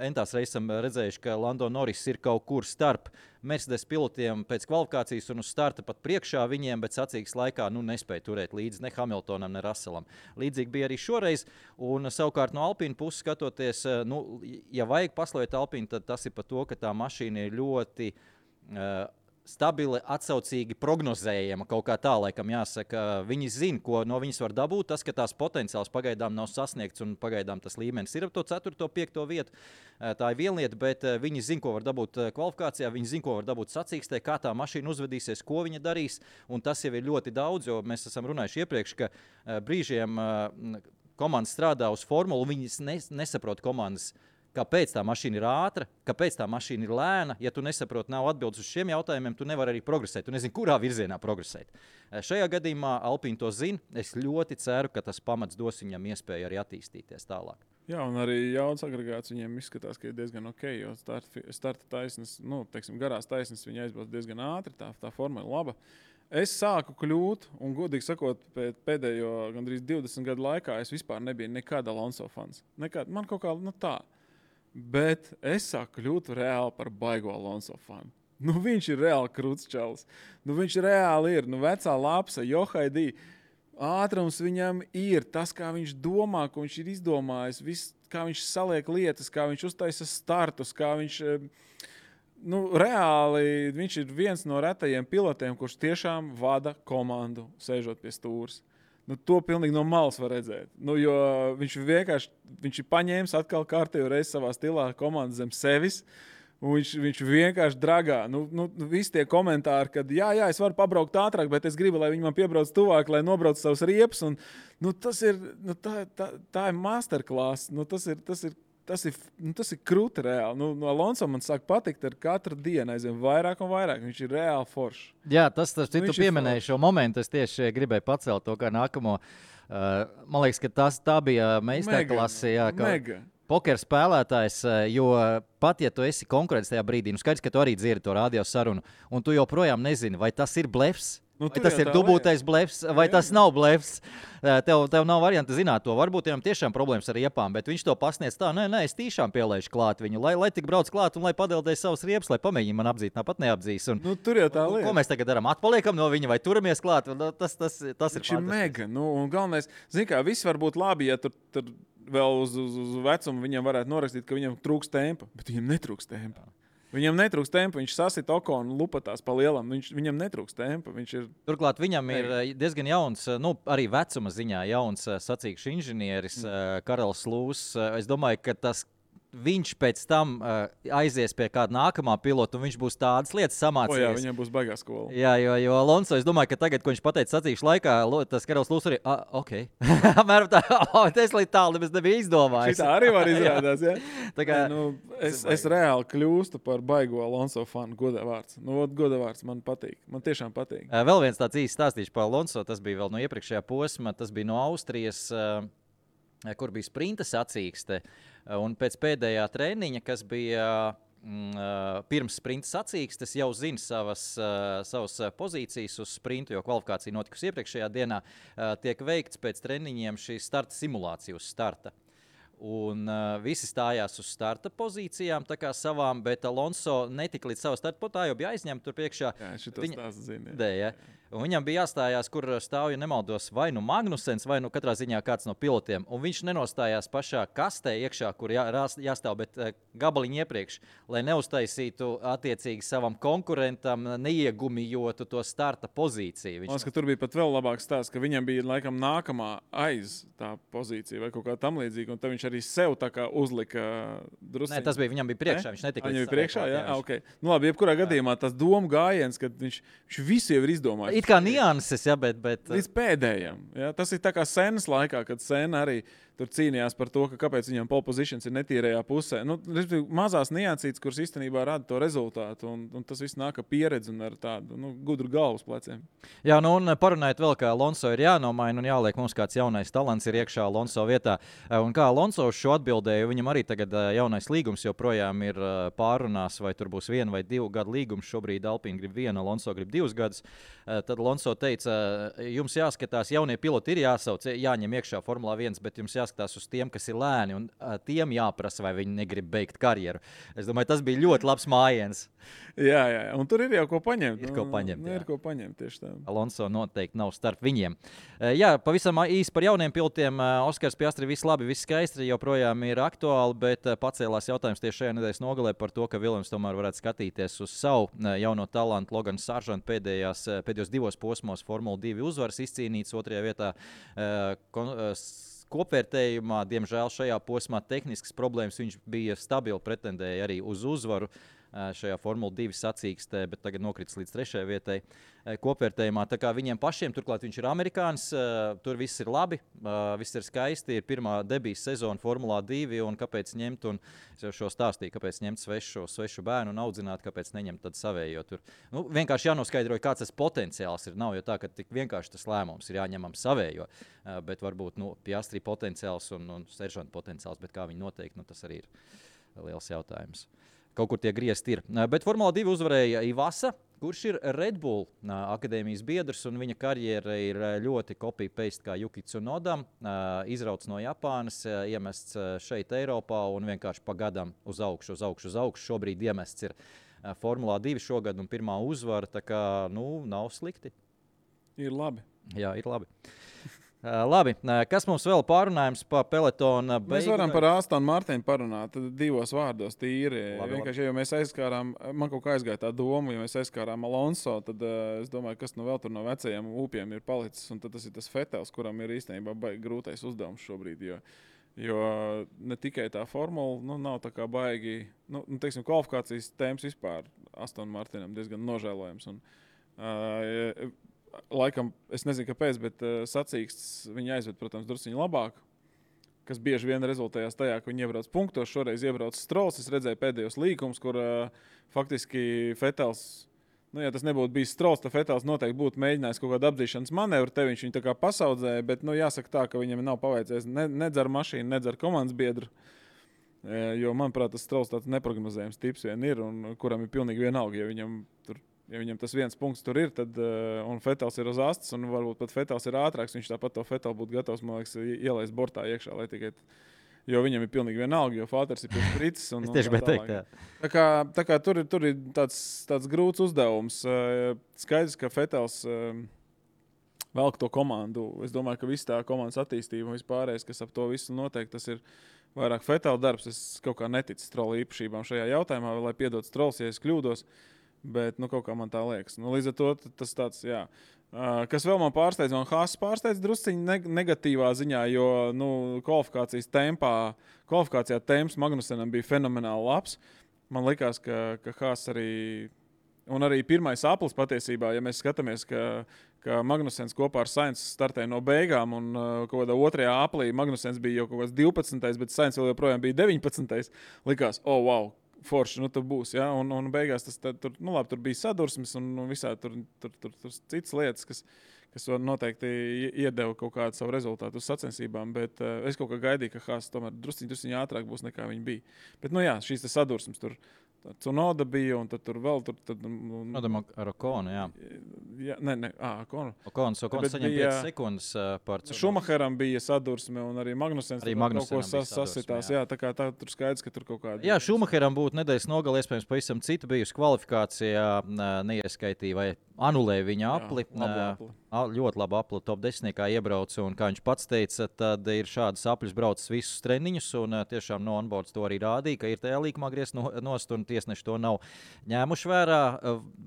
entās reizes esam redzējuši, ka Lando Norris ir kaut kur starp Mercedes pilotiem pēc kvalifikācijas un uz starta pat priekšā viņiem, bet sacīksts laikā nespēja turēt līdzi ne Hamiltonam, ne Russellam. Līdzīgi bija arī šoreiz, un savukārt no Alpīna puses skatoties, ja vajag paslavēt Alpīnu, tad tas ir par to, ka tā mašīna ir ļoti stabili, atsaucīgi prognozējama, kaut kā tā, laikam jāsaka. Viņi zina, ko no viņas var dabūt. Tas, ka tās potenciāls pagaidām nav sasniegts un pagaidām tas līmenis ir ap to 4. 5. vietu. Tā ir viena lieta, bet viņi zina, ko var dabūt kvalifikācijā, viņi zina, ko var dabūt sacīkstē, kā tā mašīna uzvedīsies, ko viņa darīs, un tas jau ir ļoti daudz, jo mēs esam runājuši iepriekš, ka brīžiem komandas strādā uz formulu, viņi nesaprot komandas, kāpēc tā mašīna ir ātra, kāpēc tā mašīna ir lēna. Ja tu nesaproti, nav atbildes uz šiem jautājumiem, tu nevari arī progresēt. Tu nezini, kurā virzienā progresēt. Šajā gadījumā Alpīna to zina. Es ļoti ceru, ka tas pamats dos viņam iespēju arī attīstīties tālāk. Jā, un arī jauns agregāts viņiem izskatās, ka ir diezgan ok, jo starta taisnes, garās taisnes viņa aizbrauc diezgan ātri, tā forma ir laba. Es sāku kļūt, un godīgi sakot, pēdējo gandrīz 20 gadu laikā es vispār nebiju nekāda Alonso fans. Man kaut kā tā. Bet es sāku kļūt reāli par baigo Alonso fanu. Viņš ir reāli krūts čalis. Viņš reāli ir. Vecā lapsa, Johaidī. Ātrums viņam ir. Tas, kā viņš domā, ko viņš ir izdomājis, kā viņš saliek lietas, kā viņš uztaisa startus, kā viņš... reāli viņš ir viens no retajiem pilotiem, kurš tiešām vada komandu, sēžot pie stūres. To pilnīgi no malas var redzēt. Jo viņš ir paņēmis atkal kārtējo reizi savā stilā komandu zem sevis, un viņš vienkārši dragā. Visi tie komentāri, kad jā, es varu pabraukt ātrāk, bet es gribu, lai viņi man piebrauc tuvāk, lai nobrauc savus riepas. Tas ir, tā ir masterclass. Tas ir krūti reāli. Alonso man sāk patikt ar katru dienu aizvien vairāk un vairāk. Viņš ir reāli foršs. Jā, tu pieminēji šo momentu. Es tieši gribēju pacelt to kā nākamo. Man liekas, ka tā bija meistarklase. Mega. Poker spēlētājs, jo pat ja tu esi konkurents tajā brīdī, skaidrs, ka tu arī dzirdi to radio sarunu, un tu joprojām nezini, vai tas ir blefs. Vai tas ir dubultais blefs, vai tas nav blefs? Tev nav varianti zināt to. Varbūt viņam tiešām problēmas ar riepām, bet viņš to pasniedz tā, nē, es tiešām pielaižu klāt viņu, lai tik brauc klāt un lai padeldēs savus riepas, lai pamēģina man apdzīt, tāpat neapdzīs. Tur jau tā lieta. Ko mēs tagad darām? Atpaliekam no viņa vai turamies klāt? Tas ir fantastiski. Mega. Un galvenais, viss var būt labi, ja tur vēl uz vecumu viņam varētu norakstīt, ka viņam trūks tempa, bet viņam netrūks tempa. Viņam netrūks tempa, viņš sasit Okonu lupatās pa lielam, viņam netrūks tempa. Turklāt viņam ir diezgan jauns, arī vecuma ziņā jauns sacīkšu inženieris Karls Lūss. Es domāju, ka viņš pēc tam aizies pie kāda nākamā pilota, un viņš būs tādas lietas samācījies. Jā, viņam būs baigā skola. Jā, jo Alonso, es domāju, ka tagad, ko viņš pateica sacīkšu laikā, tas Karls Lūss arī, ok. Apmēram tā, es līdz tālu nemaz nebija izdomājis. Šitā arī var izrādās, jā? Tā kā, es reāli kļūstu par baigo Alonso fanu, godā vārds. Godā vārds man patīk, man tiešām patīk. Vēl viens tāds īsts stāstīšu par Alonso, tas bija vēl no iepriekšējā posma, tas bija no Austrijas, kur bija sprinta sacīkste. Un pēc pēdējā treniņa, kas bija pirms sprinta sacīkstes, jau zina savas pozīcijas uz sprintu, jo kvalifikācija notikusi iepriekšējā dienā, tiek veikts pēc treniņiem šī starta simulācija uz starta. Un visi stājās uz starta pozīcijām, tā kā savām, bet Alonso netika līdz savu starta potā, jo bija aizņemta tur priekšā. Jā, šitos tās zina. Jā. Un viņam bija jāstājās, kur stāv, ja nemaldos, vai Magnusens, vai katrā ziņā kāds no pilotiem. Un viņš nenostājās pašā kastē iekšā, kur jāstāv, bet gabaliņi iepriekš, lai neuztaisītu attiecīgi savam konkurentam, neiegumijotu to starta pozīciju. Man liekas, ka tur bija pat vēl labāks stāsts, ka viņam bija laikam nākamā aiz tā pozīcija vai kaut kā tam līdzīga, un tad viņš arī sev tā kā uzlika drusciņi. Nē, tas bija, viņam bija priekšā, viņš netika Viņam līdz bija priekšā, savai jā, klāt, ok. Nu labi, jebkurā gadījumā tas domu gājiens, kad viņš visu jau ir izdomājis. It kā nianses, ja, bet... Līdz pēdējiem. Ja? Tas ir tā kā Senas laikā, kad Sena arī tur cīnījās par to, ka kāpēc viņam pole positions ir netīrējā pusē. Nu, mazās niansītes, kuras īstenībā rada to rezultātu, un tas viss nāk ar pieredzi un ar tādu gudru galvas pleciem. Jā, nu un parunājot vēl, ka Alonso ir jānomaina un jāliek mums kāds jaunais talants ir iekšā Alonso vietā. Un kā Alonso uz šo atbildēja, viņam arī tagad jaunais līgums joprojām ir pārunās, vai tur būs 1 vai 2 gadu līgums. Šobrīd Alpine grib 1, Alonso grib 2 gadus. Tad Alonso teica, jums jāskatās, jaunie piloti ir jāsauc, jāņem iekšā Formulā 1, bet jums jāskatās uz tiem, kas ir lēni, un tiem jāprasa, vai viņi negrib beigt karjeru. Es domāju, tas bija ļoti labs mājiens. Jā, un tur ir jau ko paņemt. Ir ko paņemt, ir ko paņemt tieši tā. Alonso noteikti nav starp viņiem. Jā, pavisam īsi par jauniem pilotiem. Oskars Piastri, viss labi, viss skaisti, joprojām ir aktuāli, bet pacēlās jautājums tieši šajā nedēļas nogalē par to, ka Viljams tomēr varētu skatīties uz savu jauno talantu. Logans Sargent pēdējos 2 posmos Formula 2 uzvaras izcīnīts, 2. vietā kopvērtējumā, diemžēl šajā posmā tehniskas problēmas, viņš bija stabili, pretendēja arī uz uzvaru šajā Formula 2 sacīkstē, bet tagad nokritis līdz 3. vietai kopvērtējumā. Tā kā viņiem pašiem, turklāt viņš ir amerikānis, tur viss ir labi, viss ir skaisti, ir pirmā debijas sezona Formulā 2, un kāpēc ņemt, un es jau šo stāstīju, kāpēc ņemt svešu bērnu un audzināt, kāpēc neņemt tad savējo tur. Nu, vienkārši jānoskaidro, kāds tas potenciāls ir. Nav jau tā, ka tik vienkārši tas lēmums ir jāņemam savējo, bet varbūt Piastri potenciāls un Seržanta potenciāls, bet kā viņi noteikti, tas arī ir liels jautājums. Kaut kur tie griezti ir. Bet Formula 2 uzvarēja Ivasa, kurš ir Red Bull akadēmijas biedrs, un viņa karjera ir ļoti copy-paste kā Yuki Tsunodam. Izrauts no Japānas, iemests šeit Eiropā un vienkārši pa gadam uz augšu. Šobrīd iemests ir Formula 2 šogad un pirmā uzvara, tā kā, nav slikti. Ir labi. Jā, ir labi. Labi, kas mums vēl pārunājums par pelotona beigu? Mēs varam par Astonu Martinu parunāt 2 vārdos tīri. Vienkārši, ja mēs aizskārām, man kaut kā aizgāja tā doma, ja mēs aizskārām Alonso, tad es domāju, kas vēl tur no vecajiem upiem ir palicis, un tad tas ir tas Vetels, kuram ir īstenībā grūtais uzdevums šobrīd, jo ne tikai tā formula, nav tā kā baigi, teiksim, kvalifikācijas tēmas vispār Astonu Martinam diezgan nožēlojams, un laikam, es nezinu, kāpēc, bet sacīksts viņi aizved, protams, drusciņi labāk, kas bieži vien rezultējās tajā, ka viņi iebrauc punktos. Šoreiz iebrauc Strolls. Es redzēju pēdējos līkumus, kur faktiski Vetels, ja tas nebūtu bijis Strolls, tad Vetels noteikti būtu mēģinājis kaut kādu apdzīšanas manevru. Te viņš viņu tā kā pasaudzēja, bet jāsaka tā, ka viņam nav paveicies nedz ar mašīnu, nedz ar komandas biedru. Jo, manuprāt, tas Strolls tāds neprognozējams tips vien ir, un kuram ir pilnīgi vienalga, ja viņam tas 1 punkts tur ir, tad, un Vetels ir uz astes, un varbūt pat Vetels ir ātrāks, viņš tāpat to Vetelu būtu gatavs, man liekas, ielaist bortā iekšā, lai tikai, jo viņam ir pilnīgi vienalga, jo Fāters ir piespricis. Es tieši bet teikt, jā. Tā kā tur ir tāds grūts uzdevums. Skaidrs, ka Vetels velk to komandu. Es domāju, ka viss tā komandas attīstība un vispārējais, kas ap to visu noteikti, tas ir vairāk Vetela darbs. Es kaut kā neticu Strolla īpašībām šajā jautājumā, lai piedod Strolls, ja es kļūdos. Bet, kaut kā man tā liekas. Līdz ar to tas tāds, jā. Kas vēl man pārsteidz, man Haas pārsteidz drusciņi negatīvā ziņā, jo, kvalifikācijā temps Magnusenam bija fenomenāli labs. Man likās, ka Haas arī, un arī pirmais aplis patiesībā, ja mēs skatāmies, ka Magnusens kopā ar Sainz startēja no beigām, un kaut kādā 2. aplī Magnusens bija jau kaut kāds 12. bet Sainz vēl joprojām bija 19. Likās, wow! Forši, tur būs, ja? Un beigās tur bija sadursmes un visā tur citas lietas, kas noteikti iedeva kaut kādu savu rezultātu uz sacensībām, bet es kaut kā gaidīju, ka Haas tomēr drusciņi ātrāk būs nekā viņi bija. Bet, šīs sadursmes tur Tsunoda bija, un tad tur vēl ar Okonu, jā. Okonu. Okons saņem 5 sekundes par Tsunodu. Šumacheram bija sadursme, un arī Magnusens kaut ko sasitās. Jā, tā kā tur skaidrs, ka tur kaut kāda... Jā, Šumacheram būtu nedēļas nogalē, iespējams, pavisam cita bijusi kvalifikācijā, neieskaitīja vai anulēja viņa apli. Ļoti labu apli top 10. iebrauca, un kā viņš pats teica, tad ir šādas apļus braucis visus treniņus, un tiešām no onboards to arī rādīja, ka ir tajā līkumā griezt nost, un tiesneši to nav ņēmuši vērā.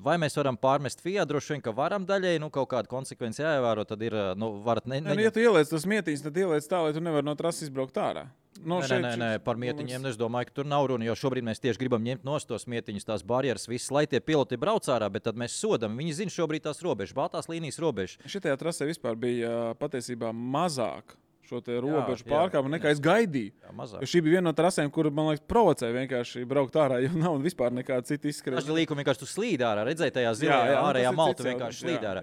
Vai mēs varam pārmest FIA? Droši vien, ka varam daļai, kaut kādu konsekvenci jāievēro, tad ir, varat ja tu ieliec tos mietiņus, tad ieliec tā, lai tu nevar no trases izbraukt ārā. Nē, par mietiņiem es domāju, ka tur nav runa, jo šobrīd mēs tieši gribam ņemt nost tos mietiņus, tās barjeras, visas, lai tie piloti brauc ārā, bet tad mēs sodam. Viņi zina šobrīd tās robežas, baltās līnijas robežas. Šitajā trasē vispār bija patiesībā mazāk šo te robežu pārkāpumu nekā es gaidīju. Jo šī bija viena no trasēm, kur, man liekas, provocēja vienkārši braukt ārā, jo nav vispār nekāda cita izskrēšana. Daži līkumi vienkārši tu slīd ārā, redzēji tajā zilajā ārējā maltu vienkārši slīd ārā.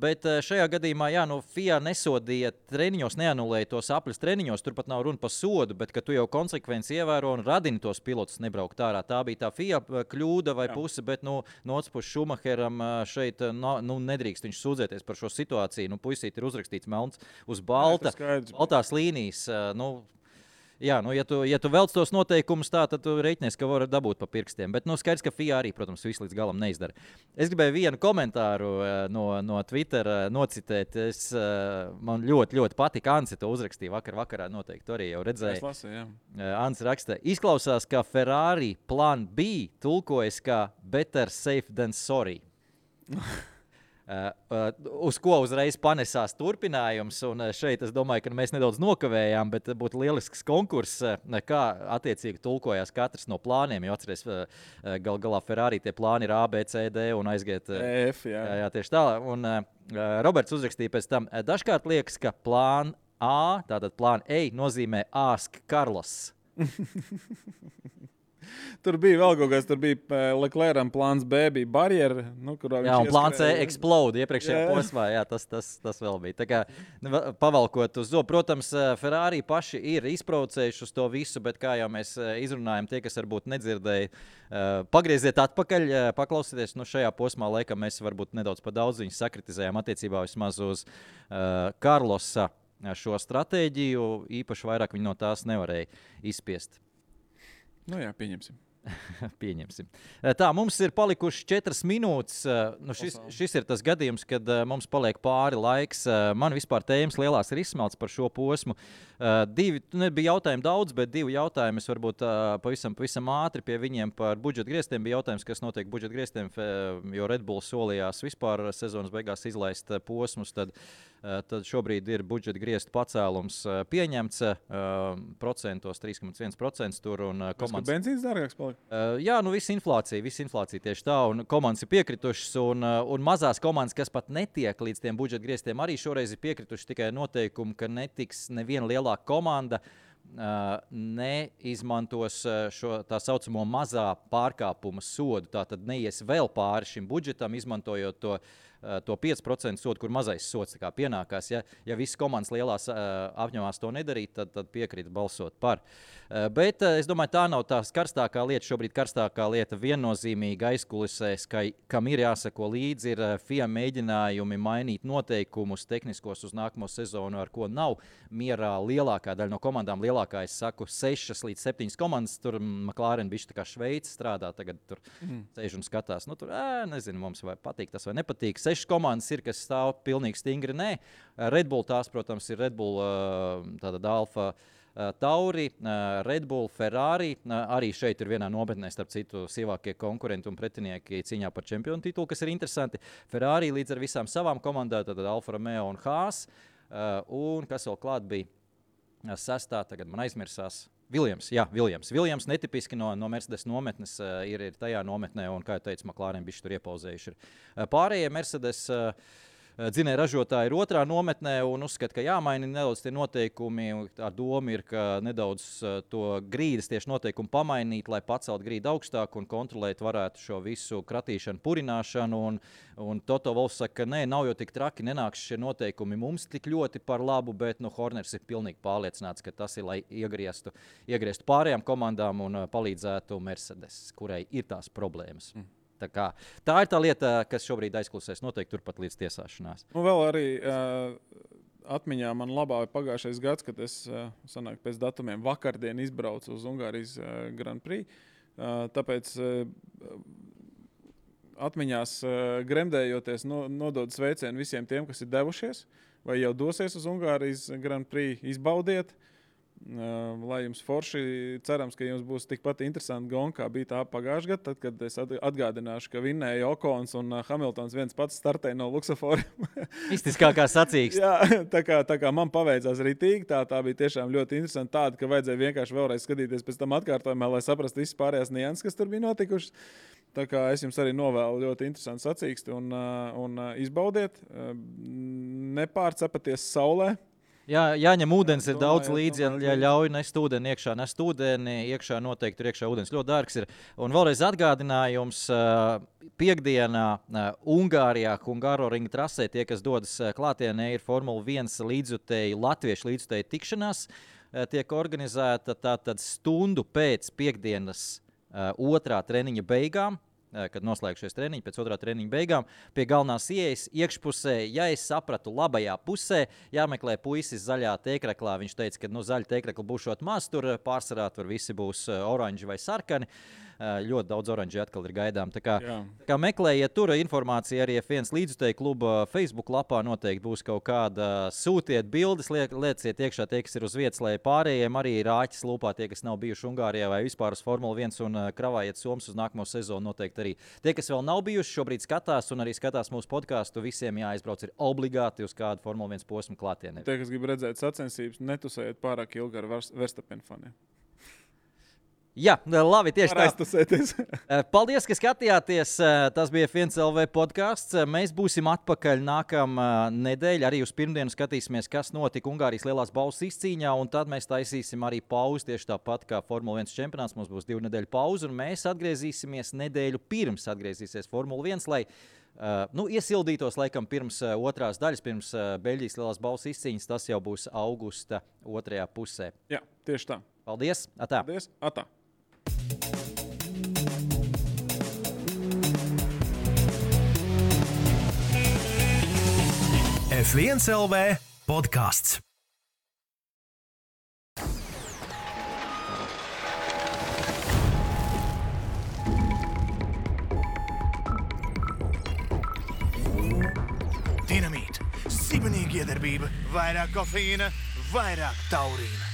Bet šajā gadījumā, FIA nesodīja treniņos, neanulēja tos apļus treniņos, turpat nav runa par sodu, bet ka tu jau konsekvenci ievēro un radini tos pilotus nebraukt ārā. Tā bija tā FIA kļūda vai puse, bet no otras puses Schumacheram šeit nedrīkst viņš sūdzēties par šo situāciju. Puisīt ir uzrakstīts melns uz balta. Baltās līnijas, ja tu velc tos noteikumus tā, tad tu reiķinies, ka var dabūt pa pirkstiem. Bet skaidrs, ka FIA arī, protams, visu līdz galam neizdara. Es gribēju vienu komentāru no Twitter nocitēt. Man ļoti, ļoti patika. Ansi to uzrakstīja vakarā noteikti arī jau redzēja. Es lasu, jā. Ansi raksta, izklausās, ka Ferrari plan B tulkojas kā better safe than sorry. Uz ko uzreiz panesās turpinājums, un šeit es domāju, ka mēs nedaudz nokavējām, bet būtu lielisks konkurss, kā attiecīgi tulkojās katrs no plāniem, jo atceries, galā Ferrari tie plāni ir A, B, C, D un aiziet F, jā, tieši tā, un Roberts uzrakstīja pēc tam, dažkārt liekas, ka plān A, tātad plān A nozīmē Ask Carlos. Tur bija vēl kaut kas, tur bija Leclercam plāns B, bija barjera. Jā, un plāns C explode iepriekšējā posmā, tas vēl bija. Tā kā pavalkot uz zobu, protams, Ferrari paši ir izprovocējuši uz to visu, bet kā jau mēs izrunājam, tie, kas varbūt nedzirdēja, pagrieziet atpakaļ, paklausieties, šajā posmā laikam mēs varbūt nedaudz pa daudz viņus sakritizējām attiecībā vismaz uz Carlosa šo stratēģiju, īpaši vairāk viņi no tās nevarēja izspiest. Pieņemsim. Pieņemsim. Tā, mums ir palikuši 4 minūtes. Šis ir tas gadījums, kad mums paliek pāri laiks. Man vispār tēmas lielās ir izsmelts par šo posmu. Bija jautājumi daudz, bet 2 jautājumi es varbūt pavisam ātri pie viņiem par budžeta griestiem. Bija jautājums, kas notiek budžeta griestiem, jo Red Bull solījās vispār sezonas beigās izlaist posmus. Tad šobrīd ir budžeta griestu pacēlums pieņemts procentos 3,1% tur. Komandas... Benzīns dārgāks palika? Visa inflācija tieši tā, un komandas ir piekritušas, un mazās komandas, kas pat netiek līdz tiem budžeta griestiem, arī šoreiz ir piekritušas tikai noteikumu, ka netiks neviena lielāka komanda neizmantos šo tā saucamo mazā pārkāpuma sodu. Tātad neies vēl pāri šim budžetam, izmantojot to 5% sodu, kur mazais sods pienākās. Ja visas komandas lielās apņemās to nedarīt, tad piekrīt balsot par. Bet es domāju, tā nav tā karstākā lieta. Šobrīd karstākā lieta viennozīmīgi aizkulisēs, kam ir jāsako līdzi, ir FIA mēģinājumi mainīt noteikumus tehniskos uz nākamo sezonu, ar ko nav mierā lielākā daļa no komandām. Lielākā, es saku, 6 līdz 7 komandas. Tur McLaren bišķi tā kā Šveice strādā, tagad tur sēž un skatās. Tur, nezinu, mums vai patīk tas vai nepatīk. 6 komandas ir, kas stāv pilnīgi stingri. Nē, Red Bull tās, protams, ir Red Bull, tātad Alfa Tauri, Red Bull, Ferrari. Arī šeit ir vienā nometnē, starp citu, sīvākie konkurenti un pretinieki cīņā par čempionu titulu, kas ir interesanti. Ferrari līdz ar visām savām komandām, tātad Alfa Romeo un Haas. Un kas vēl klāt bija sestā, tagad man aizmirsās. Williams netipiski no Mercedes nometnes ir tajā nometnē, un, kā jau teicu, McLaren bišķi tur iepauzējuši. Pārējie Mercedes dzinēja ražotāji ir otrā nometnē un uzskata, ka jāmaina nedaudz tie noteikumi. Ar domu ir, ka nedaudz to grīdas tieši noteikumu pamainīt, lai pacelt grīdu augstāk un kontrolēt varētu šo visu kratīšanu, purināšanu. Un Toto Wolffs saka, ka nē, nav jau tik traki, nenāks šie noteikumi mums tik ļoti par labu, bet Horners ir pilnīgi pārliecināts, ka tas ir, lai iegrieztu pārējām komandām un palīdzētu Mercedes, kurai ir tās problēmas. Tā ir tā lieta, kas šobrīd aizklusēs noteikti turpat līdz tiesāšanās. Vēl arī atmiņā man labā pagājušais gads, kad es pēc datumiem vakardien izbraucu uz Ungārijas Grand Prix. Tāpēc atmiņās gremdējoties nodod sveicienu visiem tiem, kas ir devušies vai jau dosies uz Ungārijas Grand Prix, izbaudiet. Lai jums forši, cerams, ka jums būs tikpat interesanti gonga, kā bija tā pagājušajā gadā, tad, kad es atgādināšu, ka vinnēja Okons un Hamiltons viens pats startēja no luksusforiem. Mistiskākā sacīkst. Jā, tā kā man paveicās ritīgi, tā bija tiešām ļoti interesanti tāda, ka vajadzēja vienkārši vēlreiz skatīties pēc tam atkārtojumā, lai saprastu visas pārējās nianses, kas tur bija notikušas. Tā kā es jums arī novēlu ļoti interesantu sacīksti un izbaudiet, nepārcepaties saulē. Jā, jāņem ūdens, ir daudz līdzi, ja ļauj nest ūdeni iekšā, iekšā noteikti tur iekšā ūdens ļoti dārgs ir. Un vēlreiz atgādinājums, piekdienā Ungārijā, Hungaroringa trasē, tie, kas dodas klātienē, ir Formula 1 līdzjutēji, latviešu līdzjutēji tikšanās, tiek organizēta tātad stundu pēc piekdienas otrā treniņa beigām, kad noslēgšies treniņi, pēc otrā treniņa beigām, pie galvenās ieejas iekšpusē, ja es sapratu, labajā pusē, jāmeklē puisis zaļā tēkraklā. Viņš teica, ka zaļa tēkrakla būšot maz, tur pārsvarā tur visi būs oranži vai sarkani. Ļoti daudz oranži atkal ir gaidām. Tā kā meklējiet tur informāciju arī F1 līdzjutēju kluba Facebook lapā noteikti būs kaut kāda. Sūtiet bildes, lieciet iekšā tie, kas ir uz vietas, lai pārējiem arī rāķis lūpā tie, kas nav bijuši Ungārijā vai vispār uz Formula 1 un kravājiet somas uz nākamo sezonu noteikti arī. Tie, kas vēl nav bijuši, šobrīd skatās un arī skatās mūsu podcastu, visiem jāizbrauc ir obligāti uz kādu Formula 1 posmu klātienē. Tie, kas grib redzēt sacensības, netusējiet pārāk ilgi ar Verstappen faniem. Jā, labi, tieši tā. Paldies, ka skatījāties. Tas bija F1 LV podcasts. Mēs būsim atpakaļ nākamā nedēļa. Arī uz pirmdienu skatīsimies, kas notika Ungārijas lielās balvas izcīņā, un tad mēs taisīsim arī pauzi tieši tāpat kā Formula 1 čempionāts. Mums būs 2 nedēļu pauze, un mēs atgriezīsimies nedēļu pirms atgriezīsies Formula 1, lai iesildītos laikam pirms otrās daļas, pirms Beļģijas lielās balvas izcīņas. Tas jau būs augusta otrajā pusē. Jā, tieši tā. Paldies! Atā! Paldies! Atā! F1 LV podcasts. Dinamīt, sibenīga iedarbība, vairāk kofeīna, vairāk taurīna.